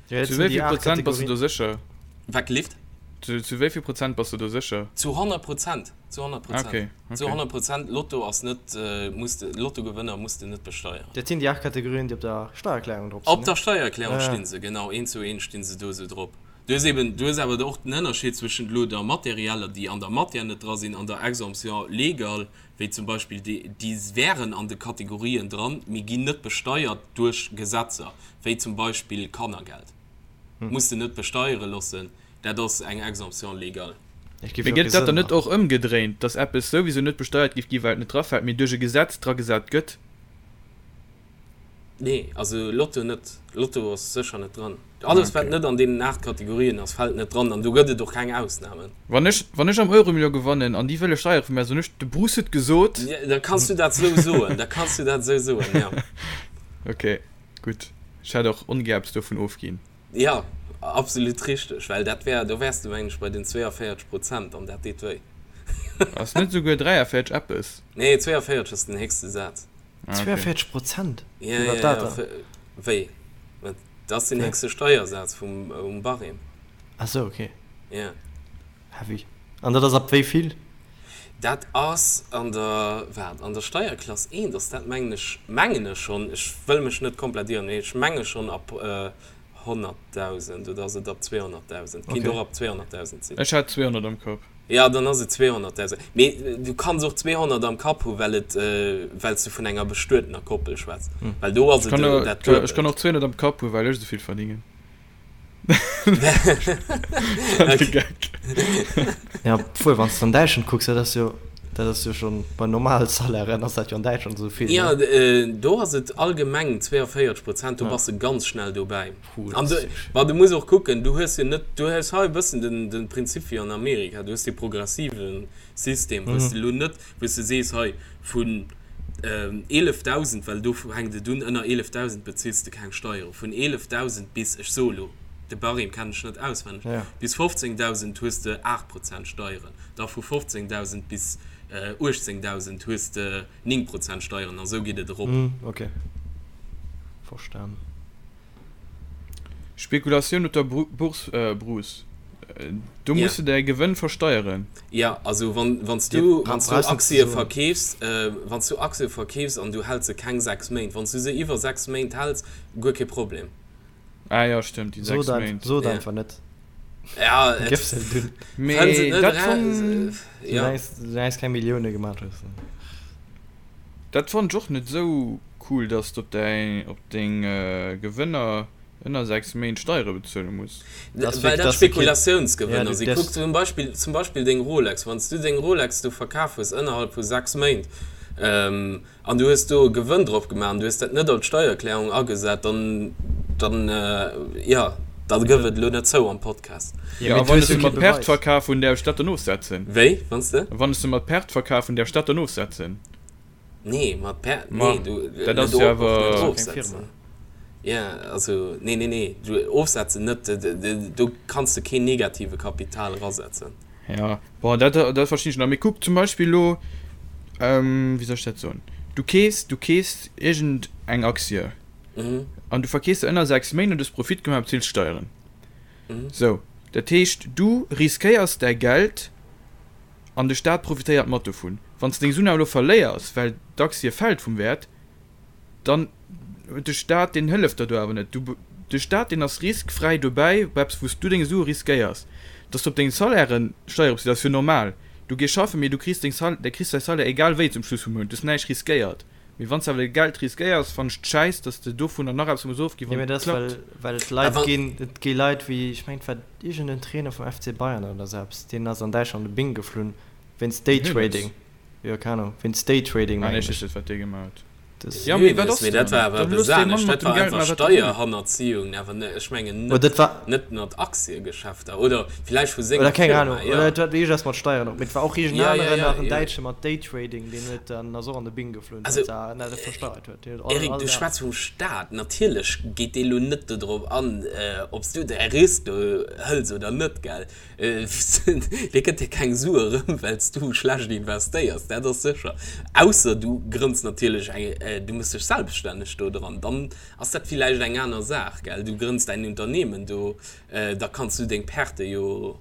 Speaker 1: Zu wéi vill Prozent bass du do sécher?
Speaker 3: Wat gelift?
Speaker 1: Zu wéi vill Prozent bass du do sécher?
Speaker 3: Zu 100 Prozent. Zu 100 Prozent. Okay, okay. Zu 100 Prozent. Lotto ass net, muss de, Lottogewënner muss de net besteieren.
Speaker 2: Dat sinn déi 8 Kategorien, déi op der Steiererklärung
Speaker 3: drop sinn, ne? Op der Steiererklärung sti se, genau. Eent zu eent sti se do esou drop. Du hues eben, du hues awer och den Ënnerscheed zwëschent elo der materieller, déi an der Matière net dra sinn, an der Exemption légale, wéi zum Beispill déi, déi wären an de Kategorien dran, mee ginn net besteiert duerch Gesetzer, wéi zum Beispill Kannergeld. Muss de net besteiere loossen, dat ass eng Exemption légale.
Speaker 1: Mee gëtt dat dann net och ëmgedréint, dass eppes souwisou net besteiert géif ginn, well et net drafält, mee duerch e Gesetz dragesat gëtt?
Speaker 3: Nee, also Lotto net. Lotto ass sécher net dran. Alles wat net an deenen 8 Kategorien ass, fält net dran an do gëtt et och keng Ausnamen.
Speaker 1: Wann ech, wann ech am Euromillion gewannen an déi wëlle Steiere vu mär, soen ech, de Bruce huet gesot.
Speaker 3: Da kanns du dat esou soen, da kanns du dat esou soen, jo.
Speaker 1: Ok, gutt. Ech hätt och ongär eppes dovun ofginn.
Speaker 3: Jo, absolut richteg, well dat wär, do wäers de mengen ech bei den 42 Prozent an dat deet wéi.
Speaker 1: Ass net esouguer 43 eppes?
Speaker 3: Nee, 42 ass den héchste Saz.
Speaker 2: 42 Prozent?
Speaker 3: Ja, ja, ja. Wéi? Dat ass den héchste Steiersaz vum um Barème.
Speaker 2: Ah sou, okay.
Speaker 3: Ja.
Speaker 2: Heavy. An dat ass ab wéi vill?
Speaker 3: Dat ass an der, waart, an der Steierklass 1 ass dat mengen ech, mengen ech schonn, ech wëll mech net komplett ieren, mee ech menge schonn ab 100.000 oder ass et ab 200.000? Kinnt och ab 200.000
Speaker 1: sinn. Ech hat 200 am Kapp.
Speaker 3: Jo, dann ass et 200.000. Mee du kanns och 200 am Kapp hu well et, well s du vun enger bestuetener Koppel schwätz. Well do ass et
Speaker 1: dat Duebelt. Ech kann och 200 am Kapp hu well ech esou vill verdingen.
Speaker 2: Ja, obwuel wann s de an Däitschland kucks, dat ass jo, dat ass jo schonn bei normale Salairen ass dat jo an Däitschland esou vill,
Speaker 3: ne? Jo, do ass et allgemeng 42 Prozent, do bass de ganz schnell dobäi. An du, ma du muss och kucken, du hues jo net, du hues hei e bëssen den, den Prinzip wéi an Amerika, du hues dee progressive System, wou s de elo net, wou s de sees, hei vun 11.000, well do fänkt et un, ënner 11.000 bezills de keng Steieren, vun 11.000 bis, ech soe lo, de Barème kennen ech net auswenneg, bis 15.000 hues de 8 Prozent Steieren, da vu 15.000 bis 18.000 hues de 9 Prozent Steieren a sou geet et erop.
Speaker 2: Ok, verstan.
Speaker 1: Spekulatioun op der Bourse, Bruce, do muss de däi Gewënn versteieren.
Speaker 3: Jo, also wann s du Aktie verkeefs, wann s du Aktie verkeefs an du häls se keng 6 Méint, wann s du se iwwer 6 Méint häls, guer kee Problem.
Speaker 1: Ah jo, stëmmt, déi 6 Méint.
Speaker 2: Sot einfach net.
Speaker 3: Ja, et
Speaker 2: Gëff se dunn.
Speaker 1: Mee dat fonnt.
Speaker 2: Soulaang s keng Millioune gemaach hues.
Speaker 1: Dat fonnt ech och net esou cool, dass de op däi, op deng Gewënner ënner 6 Méint Steiere bezuele muss.
Speaker 3: Well dat Spekulatiounsgewënner sinn. Kuck zum Beispill, zum Beispill deng Rolex, wann s du deng Rolex do verkaf hues ënnerhalb vu 6 Méint an du hues do e Gewënn drop gemaach an du hues dat net an d'Steiererklärung agesat, dann, dann, jo, da gëff et elo net zou am Podcast.
Speaker 1: Jo, a wann ech se mat Perte verkaf hunn, däerf ech dat dann ofsetzen?
Speaker 3: Wéi, wann s de?
Speaker 1: Wann ech se mat Perte verkaf hunn, däerf ech dat dann ofsetzen?
Speaker 3: Nee, mat Per, nee, du,
Speaker 1: dat ass jo awer
Speaker 3: keng Firma. Ja, also, nee, nee, nee, du ofsetzen net, do kanns de keen negative Kapital erasetzen.
Speaker 1: Ja, bon, dat, dat verstinn ech nach. Mee kuck zum Beispill elo, wéi soll ech dat soen, du keefs, du keefs iergend eng Aktie an du verkeefs se ënner 6 Méint an du hues Profit gemaach a bezills Steieren. Sou, dat heescht, du riskéiers däi Geld An de Staat profitéiert mat dovun. Wann s de deng Suen awer elo verléiers, well d'Aktie fält vum Wäert, dann huet de Staat, deen hëlleft der do awer net. Du, de Staat, deen ass riskfräi dobäi bei eppes, wou s du deng Sue riskéiers. Dass du op deng Salairen Steiere bezilt, ass jo normal. Du gees schaffen, mee du kriss deng Sal, de kriss däi Salaire egal wéi zum Schluss vum Mount. Du hues näischt riskéiert. Mee wann s de awer däi Geld riskéiers, fannen ech et schäiss, dass de dovunner nach eppes muss ofginn,
Speaker 2: wann et klappt. Well et Leit ginn, et gi Leit wéi, ech mengen et war iergend en Trainer vum FC Bayern oder esou eppes, deen ass an Däitschland op de Bing geflunn wéinst Daytrading, jo keng Ahnung, wéinst Daytrading
Speaker 1: mengen ech. Ah nee, ech weess net wat dee gemaach huet. Ja, mee wat ass
Speaker 3: Mee dat
Speaker 1: dann?
Speaker 3: war awer
Speaker 1: Dann
Speaker 3: eppes
Speaker 1: looss dee Mann
Speaker 3: anescht.
Speaker 1: mat
Speaker 3: Dat
Speaker 1: dem
Speaker 3: war
Speaker 1: Geld
Speaker 3: einfach
Speaker 1: maachen, wat e wëll.
Speaker 3: Steierhannerziehung, awer ne, ech mengen
Speaker 2: Oder
Speaker 3: net,
Speaker 2: dat war.
Speaker 3: net mat Aktiegeschäfter oder villäicht vu
Speaker 2: Oder
Speaker 3: senger
Speaker 2: keng
Speaker 3: Firma,
Speaker 2: Ahnung.
Speaker 3: jo.
Speaker 2: Oder et hat iergendeppes mat Steieren och. Mee et war och iergend
Speaker 3: Ja, ja,
Speaker 2: aneren
Speaker 3: ja,
Speaker 2: nach, en
Speaker 3: jo.
Speaker 2: Däitsche mat Daytrading, deen huet dann, ass och an de Bing geflunn,
Speaker 3: Also,
Speaker 2: well se net versteiert huet. Deen huet all,
Speaker 3: Eric,
Speaker 2: all
Speaker 3: du
Speaker 2: Dag.
Speaker 3: schwätz vum Staat. Natierlech geet dee lo net dodrop an, ob s du däi Risk do hëls oder net, gell? Dee gëtt dir keng Sue erëm, well s du schlecht investéiers, dat ass sécher. Ausser du grënns natierlech eng, du méchs dech selbststänneg do dran, dann ass dat villäicht eng aner Saach, gell. Du grënns däin Unternehmen do, da kanns du deng Perte jo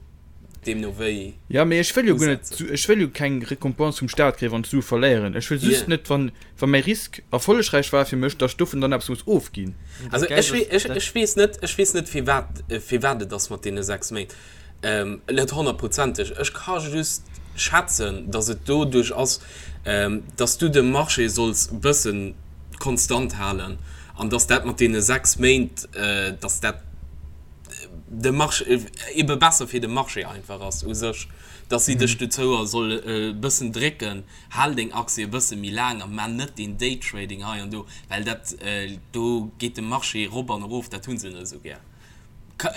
Speaker 3: deemno wéi
Speaker 1: Jo, mee ech wëll jo guer net,
Speaker 3: usetzen.
Speaker 1: ech wëll jo keng Récompense vum Staat kréien, wann ech Sue verléieren. Ech wëll just
Speaker 3: Jo.
Speaker 1: net, wann, wa mäi Risk erfollegräich war fir mech, datt ech dovun dann eppes muss ofginn.
Speaker 2: Dat
Speaker 3: Also
Speaker 2: Geld
Speaker 3: ech,
Speaker 2: ass,
Speaker 3: ech,
Speaker 2: dat.
Speaker 3: ech weess net, ech weess net firwat, firwat et ass mat deene 6 Méint. Net honnertprozenteg. Ech ka just schätzen, datt et doduerch ass, datt s du de Marché solls e bësse konstant halen an datt dat mat deene 6 Méint, datt dat de Marché ebe besser fir de Marché einfach ass u sech, datt si dech dozou solle e bëssen drécken, Hal deng Aktie e bësse méi laang a man net deen Daytrading hei an do, well dat do geet de Marché rop an erof, dat hu se net esou gär.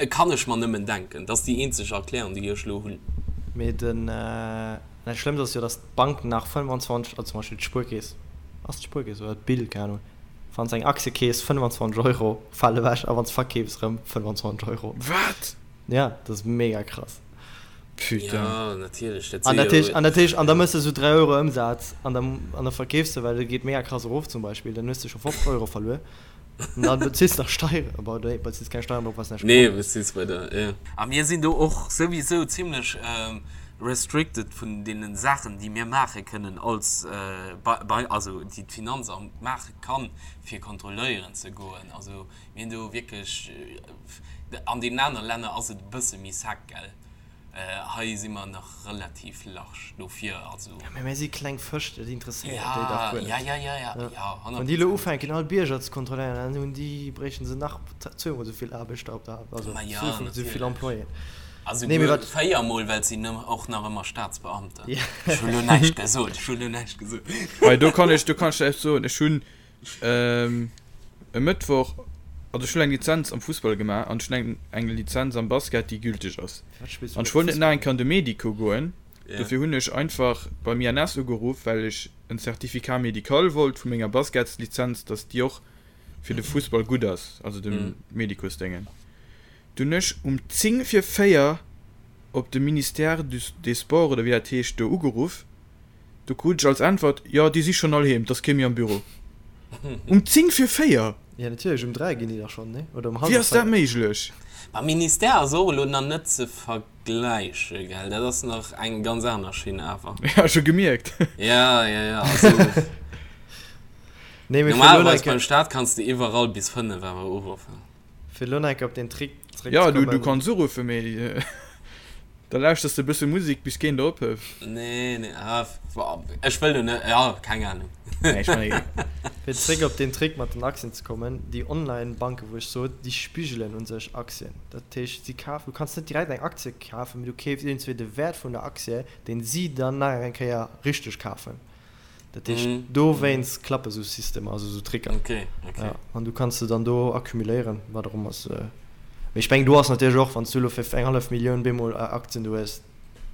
Speaker 3: Kann ech mer nëmmen denken. Dat ass déi eenzeg Erklärung, déi ech elo hunn.
Speaker 2: Mee den, dat Schlëmmst ass jo, datt d'Bank nach 25, also zum Beispill d'Spuerkeess, ass d'Spuerkeess oder d'Bill, keng Ahnung, wann s eng Aktie keefs, 25 Euro fale ewech a wann s verkeefs erëm 25 Euro.
Speaker 1: Wat?
Speaker 2: Ja, dat ass mega krass.
Speaker 1: Putain.
Speaker 3: Ja, natierlech, dat
Speaker 2: An
Speaker 3: si
Speaker 2: dat heescht,
Speaker 3: jo,
Speaker 2: an dat heescht, an da mëss de sou 3 Euro Ëmsaz an da, an da verkeefs de, well et geet mega krass erof zum Beispill, dann hues de scho 50 Euro verluer an dann bezills de nach Steieren, bon, nee, bezills keng Steieren drop, well s näischt
Speaker 3: nee,
Speaker 2: gewonnen hues.
Speaker 3: bezills bei der, ja. A mir sinn do och souwisou zimlech restricted vun deene Saachen, déi mir maache kënnen als, bei, bei, also déi d'Finanzamt maache kann, fir kontrolléieren ze goen. Also Mir hunn do wierklech, an deenen anere Länner ass et e bësse méi sec, gell? Hei si mer nach relativ large dofir, also.
Speaker 2: Ja, mä mir si kleng Fësch, dat interesséiert déi dach guer net.
Speaker 3: Ja, ja, ja, ja, ja, ja,
Speaker 2: Wann déi elo ufänken all Bierger ze kontrolléieren, dann hunn déi, bréichten se nach zweemol esou vill Aarbechter op der, also
Speaker 3: Ma ja,
Speaker 2: zweemol esou vill
Speaker 3: natierlech.
Speaker 2: Employéen.
Speaker 3: Also
Speaker 2: Nee, mee
Speaker 3: guer
Speaker 2: wat.
Speaker 3: véiermol, well et sinn och nach ëmmer Staatsbeamten.
Speaker 2: Ja.
Speaker 3: Ech hunn elo näischt gesot, ech hunn elo näischt gesot.
Speaker 1: Hei, do kann ech, do kann ech eppes soen, Ech hunn E Mëttwoch, also ech hunn eng Lizenz am Fussball gemaach an ech hunn eng eng Lizenz am Basket, déi gülteg ass. An ech wollt net nach eng Kéier an de Medico goen, dofir hunn ech einfach beim INS ugeruff, well ech en Certificat médical wollt vu menger Basketslizenz, dass déi och fir de Fussball gutt ass, also dem Medicosdéngen. Dunn ech um 10 vir 4 op de Ministère des Sports oder wéi dat heescht do ugeruff. Do krut ech als Äntwert, Jo, déi si schonn all heem, 't ass kee méi am Büro. Um 10 vir 4!
Speaker 2: Jo, natierlech, um 3 ginn déi dach schonn, nee? Oder um
Speaker 1: Wéi
Speaker 2: hallwer
Speaker 1: ass dat
Speaker 2: 4.
Speaker 1: méiglech?
Speaker 3: Ma Ministère ass och elo nach net ze vergläiche, gell? Dat ass nach eng ganz aner Schinn awer.
Speaker 1: Ja, scho gemierkt.
Speaker 3: Ja, ja, ja, also
Speaker 2: Nee, mee fir elo
Speaker 3: normalerweis
Speaker 2: nach eng
Speaker 3: beim
Speaker 2: Kéier,
Speaker 3: Staat kanns de iwwerall bis 5 awer uruffen.
Speaker 2: fir elo nach eng Kéier op deen Trick
Speaker 1: Ja, du, du
Speaker 2: zeréckzekommen.
Speaker 1: kanns uruffen, mee da lauschters de e bësse Musek, bis keen der ophëlt.
Speaker 3: Nee, nee, ah, ech wëll do net, ja, keng Ahnung.
Speaker 1: Nee, ech meine,
Speaker 2: Fir zréck op deen Trick mat den Aktien ze kommen, déi Online-Banken, wou ech sot, déi spigelen u sech Aktien. Dat heescht, si kafen, du kanns net direkt eng Aktie kafen, mee du keefs iergendswéi de Wäert vun der Aktie, deen si dann nach eng Kéier richteg kafen. Dat heescht, dowéinst klappe sou Systemer, also sou Tricker.
Speaker 3: Okay, okay.
Speaker 2: Ja, an du kanns se dann do accumuléieren, wat och ëmmer se. Mee ech mengen, do ass natierlech och, wann s du elo fir eng hallef Millioun bemol Aktien do hues,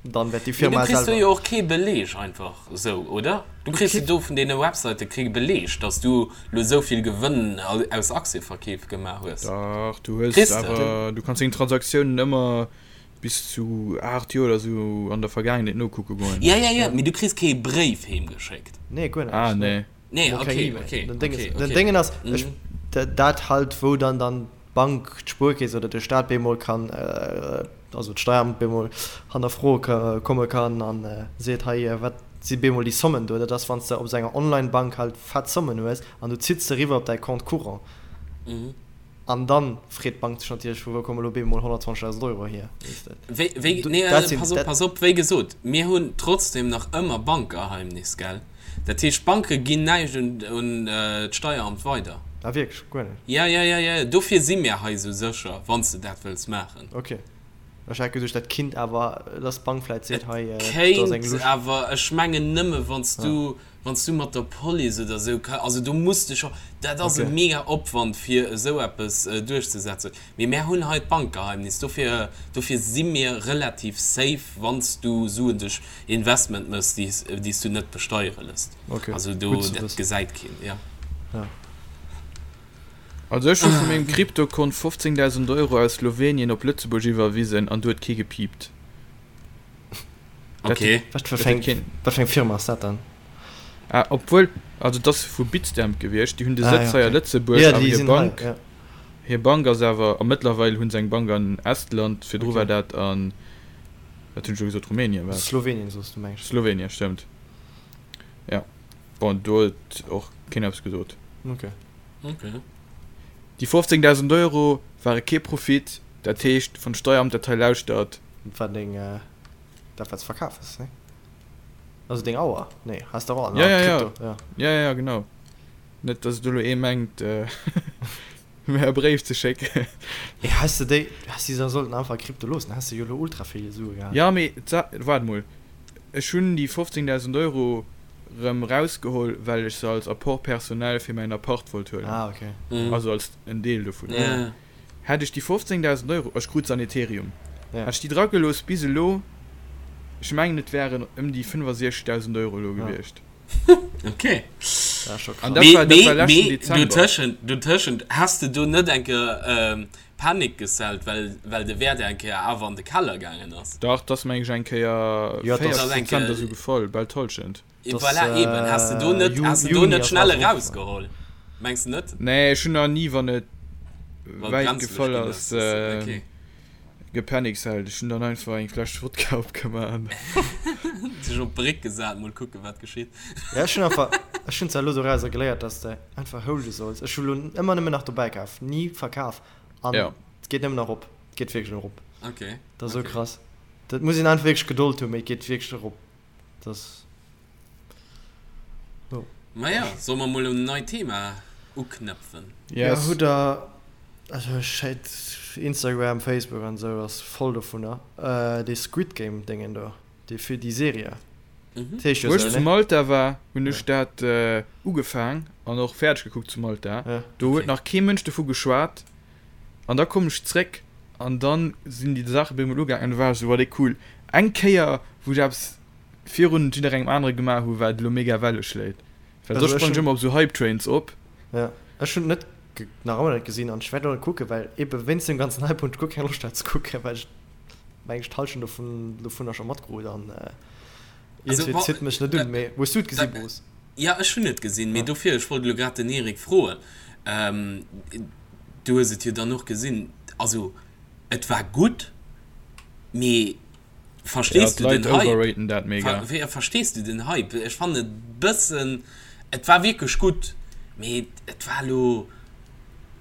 Speaker 2: dann wäert déi
Speaker 3: Mee du
Speaker 2: Firma
Speaker 3: kriss do
Speaker 2: selwer.
Speaker 3: jo och kee Beleg einfach esou, oder? Du kriss jo do vun deene Websäite kee Beleg, dass du lo esou vill Gewënn aus Aktieverkeef gemaach hues.
Speaker 1: Dach, du hues
Speaker 3: Kriss de?
Speaker 1: awer, du kanns deng Transaktiounen ëmmer Bis zu 8 Joer oder sou an der Vergaangenheet nokucke goen.
Speaker 3: Ja, ja, ja, mee du kriss kee Bréif heem geschéckt.
Speaker 2: Nee, guer
Speaker 1: Ah,
Speaker 2: näischt.
Speaker 1: nee.
Speaker 3: Nee,
Speaker 2: Mol keng
Speaker 3: okay,
Speaker 2: E-Mail.
Speaker 3: okay,
Speaker 2: Den Ding
Speaker 3: okay,
Speaker 2: ass, den
Speaker 3: okay.
Speaker 2: Déngen ass, ech,
Speaker 3: Mhm.
Speaker 2: dat halt, wou dann dann d'Bank, d'Spuerkeess oder de Staat bemol kann, also d'Steieramt bemol hannerfroe ka komme kann an seet, hei, wat si bemol déi Sommen do? Dat ass, wann s de op esou enger Online-Bank halt fett Sommen hues an du zitts se eriwwer op däi Compte courant.
Speaker 3: Mhm.
Speaker 2: An dann freet d'Bank sech natierlech, vu wou komme lo bemol 120.000 Euro hier, weess de.
Speaker 3: Wéi, wéi, nee,
Speaker 2: Dat sinn,
Speaker 3: pass op,
Speaker 2: dat.
Speaker 3: pass op, wéi gesot, mir hunn trotzdem nach ëmmer Bankgeheimnis, gell? Dat heescht, d'Banke ginn näischt un, un d'Steieramt weider.
Speaker 2: Ah wierklech? Guer net?
Speaker 3: Ja, ja, ja, ja, dofir si mir hei esou sécher, wann s de dat wëlls maachen.
Speaker 2: Ok. Ech hat geduecht, dat kinnt awer, dass d'Bank vläit seet, hei,
Speaker 3: do ass eng Kéint, Lusch. awer ech mengen nëmme wann s du, wann s du mat der Police oder esou, also do muss de scho, dat ass e mega Opwand fir esou eppes duerchzesetzen. Mee mär hunn hei d'Bankgeheimnis, dofir, dofir si mir relativ safe, wann s du Suen duerch Investment méchs, déi s, déi s du net besteiere lësst.
Speaker 2: Also
Speaker 3: do, dat gesäit keen, jo.
Speaker 1: Also ech hu vu mengem Kryptokont 15.000 Euro aus Slowenien op Lëtzebuerg iwwerwisen an do huet kee gepiept.
Speaker 3: Ok.
Speaker 2: Wat fir eng, wat fir eng Firma ass dat dann?
Speaker 1: Ah, obwuel, also et ass vu Bitstamp gewiescht, déi hunn de Sëtz hei a Lëtzebuerg, awer hir Bank, hir Bank ass awer, a mëttlerweil hu se eng Bank an Estland, virdru war dat an, wat hunn ech elo gesot, Rumänien war et?
Speaker 2: Slowenien soos du, meng
Speaker 1: ech. Slowenien, stëmmt, jo. Bon, do huet och keen eppes gesot.
Speaker 2: Ok.
Speaker 3: Ok.
Speaker 1: Déi 15.000 Euro ware kee Profit, dat heescht, wann d'Steieramt dat hei lauschtert.
Speaker 2: Dat war deng, dat wat s verkaf hues, nee? Also deng Auer? Nee, has de och
Speaker 1: an
Speaker 2: Ja,
Speaker 1: ja, ja. Krypto, ja. Ja, ja, genau. Net, dass et elo ee mengt, mir e Bréif ze schécken.
Speaker 2: Mee has de déi, has de se sollten einfach a Krypto loossen, häss de jo elo ultra vill Sue gehat.
Speaker 1: Ja, mee waart mol, ech hunn déi 15.000 Euro rëm rausgeholl, well ech se als Apport personnel fir mäin Appart wollt huelen.
Speaker 2: Ah, okay.
Speaker 1: Also als en Deel dovun.
Speaker 3: Ja.
Speaker 1: Hätt ech déi 15.000 Euro, ech krut se an Ethereum,
Speaker 2: Ja.
Speaker 1: hätt ech déi dragelooss bis elo, ech mengen et wären ëm déi 65.000 Euro elo
Speaker 2: Ja.
Speaker 1: gewiescht.
Speaker 3: Okay.
Speaker 2: Dat ass scho
Speaker 1: An
Speaker 2: krass.
Speaker 1: dat
Speaker 3: Mee,
Speaker 1: war, dat war
Speaker 3: mee,
Speaker 1: leschten
Speaker 3: mee,
Speaker 1: Dezember.
Speaker 3: dotëschent, dotëschent, has de do net eng Kéier ähm, Panik gesellt, well, well de Wäert eng Kéier awer an de Keller gaangen ass?
Speaker 1: Dach, 't ass meng ech eng Kéier
Speaker 2: Ja, 't ass-
Speaker 1: 40
Speaker 3: eng
Speaker 1: Prozent
Speaker 3: Kéier-
Speaker 1: oder sou gefall, bal d'Hallschent.
Speaker 2: Das,
Speaker 3: Voilà, eben. Has de do net,
Speaker 2: Ju-
Speaker 3: has de do
Speaker 2: Juni
Speaker 3: net
Speaker 2: ass
Speaker 3: schnell
Speaker 2: alles
Speaker 3: erausgeholl? Mengs de net?
Speaker 1: Nee, ech hunn nach ni, wann et
Speaker 3: Wann
Speaker 1: wäit
Speaker 3: brenzlech
Speaker 1: gefall
Speaker 3: ginn
Speaker 1: ass,
Speaker 3: ass, okay.
Speaker 1: gepanickselt. Ech hunn dann einfach eng Fläsch Wodka opgemaach an.
Speaker 3: Sech op d'Bréck gesat, mol kucken, wat geschitt.
Speaker 2: Ja, ech hunn einfach, ech hunn zwar elo dorauser geléiert, dass de einfach holde solls. Ech hu lo ëmmer nëmmen nach dobäi kaf, ni verkaf. An
Speaker 1: Ja.
Speaker 2: et geet nëmmen erop. Et geet wierklech erop.
Speaker 3: Okay.
Speaker 2: Dat ass esou
Speaker 3: Okay.
Speaker 2: krass. Dat muss een einfach wierklech Gedold hunn, mee et geet wierklech erop. Das
Speaker 3: jo. Maja, solle mer mol un en neit Thema uknëpfen?
Speaker 2: Yes.
Speaker 1: Ja,
Speaker 2: hutt der, also ech hätt Instagram, Facebook an esou ass voll dovunner, dee Squid Game Déngen do, dee fir déi Serie.
Speaker 3: Mhm.
Speaker 2: Dat heescht jo
Speaker 1: Wou ech
Speaker 2: esou,
Speaker 1: zu
Speaker 2: ne?
Speaker 1: Malta war, hunn ech dat ugefaang an och fäerdeg gekuckt zu Malta.
Speaker 2: Ja.
Speaker 1: Do huet
Speaker 3: Okay.
Speaker 1: nach kee Mënsch dovu geschwat. An da kommen ech zréck an dann sinn déi Saache bei emol ugaangen an du war ech esou, oh déi cool. Eng Kéier wou ech eppes virun jidderengem anere gemaach hu wat elo mega Welle schléit. Well
Speaker 2: Also
Speaker 1: soss
Speaker 2: ech
Speaker 1: sprange ech
Speaker 2: hunn
Speaker 1: ëmmer op esou Hype Trains op.
Speaker 2: Ja, ech hunn et net nach ëmmer net gesinn an ech wäert och net kucken, well ebe wéinst dem ganzen Hype hunn ech guer keng Loscht dat ze kucken, well ech meng ech d'Hallschent dovun dovunner scho matkrut an
Speaker 3: Also
Speaker 2: iergendwéi
Speaker 3: wa
Speaker 2: zitt mech net un. Mee hues du et gesi Bruce?
Speaker 3: Ja, ech hunn et gesinn, mee
Speaker 2: Ah.
Speaker 3: dofir, ech wollt elo grad den Eric froen, du hues et jo dann och gesinn, also et war gutt, mee
Speaker 1: Ja,
Speaker 3: verstees du
Speaker 1: d'Leit
Speaker 3: den Hype?
Speaker 1: overraten dat mega.
Speaker 3: Ver, verstees du den Hype? Ech fannen et bëssen, et war wierklech gutt, mee et war elo,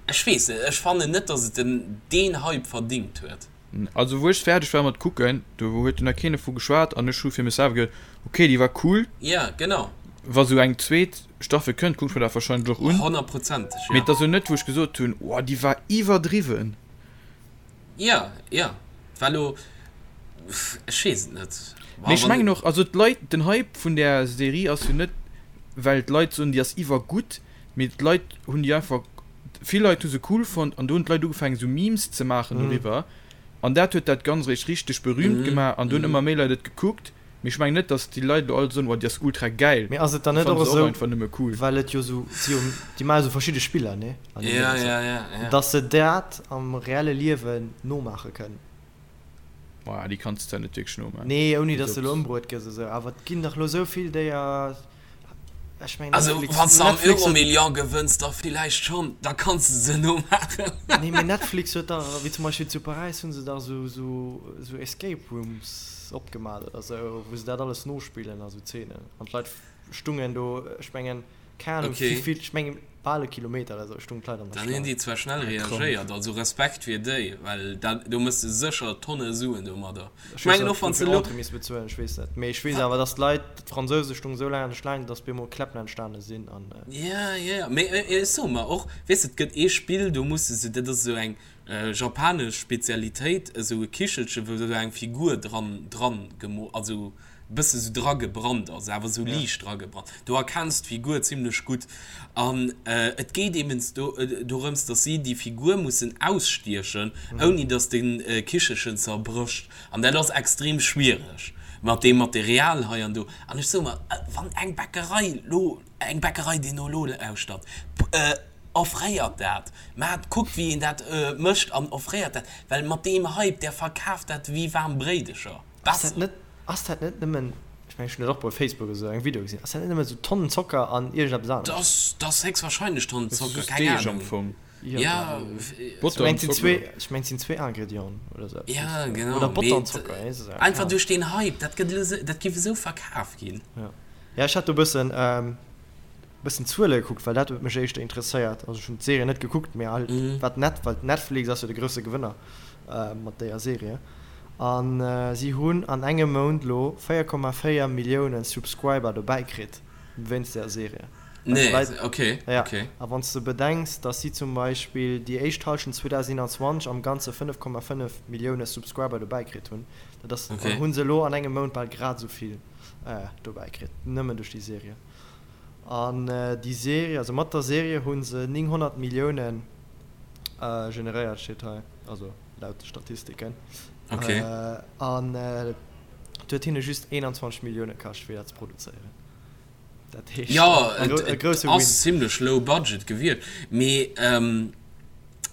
Speaker 3: ech weess net, ech fannen net, datt et den deen Hype verdingt huet.
Speaker 1: Also wou ech fäerdeg war mat kucken, do huet jo nach keen dovu geschwat an ech hu fir mech selwer geduet, ok déi war cool,
Speaker 3: Ja, genau.
Speaker 1: wa sou eng zweet Staffel kënnt, kuck ech mer dat wahrscheinlech och un.
Speaker 3: Honnertprozenteg,
Speaker 1: Mee
Speaker 3: ja.
Speaker 1: et ass jo net wou ech gesot hunn, oh déi war iwwerdriwwen.
Speaker 3: Ja, ja, war lo, ech weess et net.
Speaker 1: Mee ech mengen och, also d'Leit, den Hype vun där Serie ass jo net well d'Leit soen déi ass iwwergutt, Mee d'Leit hunn déi einfach, vill Leit hu se cool fonnt an do hunn d'Leit ugefaangen esou Memes ze maachen doriwwer an dat huet dat Ganzt eréischt richteg berühmt gemaach an do hunn ëmmer méi Leit et gekuckt. Mee ech mengen net, datt déi Leit elo all soen, oh déi ass ultra gäil.
Speaker 2: Mee ass et dann
Speaker 1: Déi
Speaker 2: net och
Speaker 1: fanne se och
Speaker 2: esou,
Speaker 1: einfach nëmme cool.
Speaker 2: well et jo esou, si jo, déi maache esou verschidde Spiller, ne, an deem
Speaker 3: Ja,
Speaker 2: Déngens,
Speaker 3: ja, ja, ja.
Speaker 2: datt se dat am reelle Liewen nomaache kënnen?
Speaker 1: Maja, déi kanns de net wierklech nomaachen.
Speaker 2: Nee, ouni datt
Speaker 1: Also
Speaker 2: de elo ëmbruet gëss esou, awer et ginn dach elo esou vill déier. Ech mengen
Speaker 3: Also
Speaker 2: Netflix,
Speaker 3: wann s de am
Speaker 2: Netflix huet.
Speaker 3: Euromillion gewënns, da villäicht schonn, da kanns de se nomaachen.
Speaker 2: Nee, mee Netflix huet dach, wéi zum Beispill zu Paräis hu se dach esou, esou, esou Escape Rooms opgemaach oder esou, wou se dat alles nospillen a sou Zeenen. An d'Leit stungen do, ech mengen. Keng Ahnung
Speaker 3: Okay.
Speaker 2: wéivill, ech mengen bal e Kilometer oder sou stoungen d'Leit an der
Speaker 3: Dann hunn
Speaker 2: Schlaang.
Speaker 3: déi zwar schnell reagéiert, also Respekt fir déi, well dat, do mëss de sécher Tonne Suen domadder.
Speaker 2: Ech
Speaker 3: Ech
Speaker 2: weess
Speaker 3: mengen
Speaker 2: net
Speaker 3: och wann s
Speaker 2: wéivill
Speaker 3: de elo.
Speaker 2: Entrée misst bezuelen, ech weess net. Mee ech weess awer dass d'Leit, d'Fransouse stoungen sou laang an der Schlaang, dass bemol Kläppen entstane sinn an.
Speaker 3: Ja, ja, ja, mee ech soe mer och, weess de, et gëtt ee Spill, do muss de sou, dat ass esou eng japanesch Spezialitéit, esou e Kichelche wou esou eng Figur dran, dran gemo, also bësse sou dragebrannt ass, awer sou liicht dragebrannt. Do erkenns d'Figur zimlech gutt. An et geet eben do dorëms, dass si déi Figur mussen ausstiechen, ouni dass de Kichelchen zerbrécht. An dat ass extrem schwiereg mat deem Material hei an do. An ech soe mer, wann eng Bäckerei lo, eng Bäckerei, déi no elo lauschtert, offréiert dat, maacht, kuckt wéi een dat mécht an offréiert dat, well mat deem Hype, där verkaaft dat wéi waarm Bréidecher.
Speaker 2: Ass dat net, ass dat net nëmmen, ech mengen ech hunn dat och bei Facebook esou engem Video gesinn, ass dat net nëmmen esou Tonnen Zocker an iergendeppes anescht?
Speaker 3: Dat ass héchstwahrscheinlech Tonnen
Speaker 1: Dat ass
Speaker 3: Zocker,
Speaker 1: just
Speaker 3: keng
Speaker 1: Deeg am
Speaker 3: Ahnung.
Speaker 1: Fong.
Speaker 3: Ja,
Speaker 2: Ech
Speaker 1: Botter
Speaker 2: mengen
Speaker 1: an
Speaker 2: et sinn
Speaker 1: Zocker.
Speaker 2: zwee, ech mengen et sinn zwee Ingredienten oder esou eppes.
Speaker 3: ja genau,
Speaker 2: Oder Botter
Speaker 3: mee
Speaker 2: an Zocker, ech weess et keng
Speaker 3: einfach
Speaker 2: Ahnung.
Speaker 3: duerch deen Hype, dat gëtt elo esou, dat géif esou verkaf ginn.
Speaker 2: Ja, ja ech hat do e bëssen, bëssen Zuele gekuckt, well dat huet mech éischter interesséiert. Also ech hunn d'Serie net gekuckt, mee halt wat net, well Netflix ass jo de grousse Gewënner mat déier Serie. An si hunn an engem Mount lo 4,4 Millioune Subscriber dobäi kritt wéinst där Serie. Well
Speaker 3: Nee,
Speaker 2: d'Leit,
Speaker 3: okay,
Speaker 2: ja,
Speaker 3: okay.
Speaker 2: a wann s de bedenks, datt si zum Beispill déi éischt Hallschent 2021 am Ganze 5,5 Millioune Subscriber dobäi kritt hunn, dat ass,
Speaker 3: Okay.
Speaker 2: hu se elo an engem Mount bal grad esou vill dobäi kritt, nëmmen duerch déi Serie. An déi Serie, also mat der Serie hu se 900 Millioune generéiert, steet hei, also laut de Statistiken.
Speaker 3: Okay.
Speaker 2: An et huet hinne just 21 Millioune kascht, fir dat ze produzéieren. Dat heescht,
Speaker 3: Jo,
Speaker 2: e
Speaker 3: et
Speaker 2: grousse Win.
Speaker 3: ass zimlech low budget gewiescht. Mee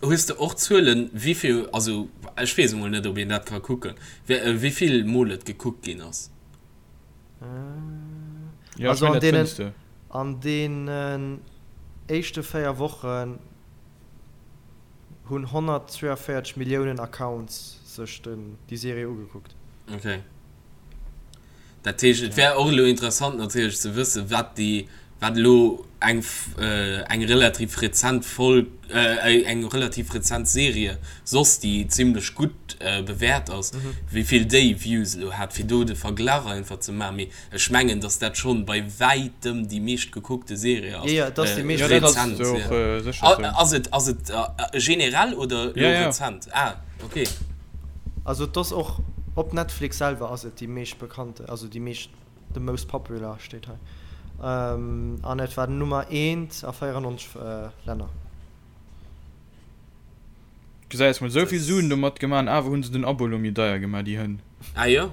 Speaker 3: hues de och Zuelen, wéivill, also ech weess emol net, ob een dat ka kucken, wéivill mol et gekuckt ginn ass?
Speaker 1: Ja,
Speaker 2: also
Speaker 1: ech
Speaker 2: an
Speaker 1: mengen, dat
Speaker 2: deenen,
Speaker 1: fënns de.
Speaker 2: an deenen éischte 4 Wochen hunn 142 Milliounen Accounts sech den, déi Serie ugekuckt.
Speaker 3: Okay. Dat heescht, et wär och elo interessant natierlech ze wëssen, wat déi, wat elo eng, eng relativ rezent Folg, eng relativ rezent Serie soss, déi zimlech gutt bewäert ass, wéi vill déi Views elo hat, fir do de Verglach einfach ze maachen. Mee ech mengen, datt dat schonn bei wäitem déi meescht gekuckte Serie ass.
Speaker 2: Jo, jo, et ass déi meescht
Speaker 1: Jo, dat ass
Speaker 3: Rezent,
Speaker 1: och
Speaker 3: jo.
Speaker 1: sécher esou.
Speaker 3: Ass et, ass et generell oder elo
Speaker 1: Ja, ja.
Speaker 3: rezent? Ah, okay.
Speaker 2: Also et ass och op Netflix selwer ass et déi meescht bekannte, also déi meescht, the most popular steet hei. An et war Nummer eent a 94 Länner.
Speaker 1: Gesäis mol, souvill Suen domat gemaach an awer hunn se den Abo elo méi deier gemaach, déi Hënn.
Speaker 3: Ah jo?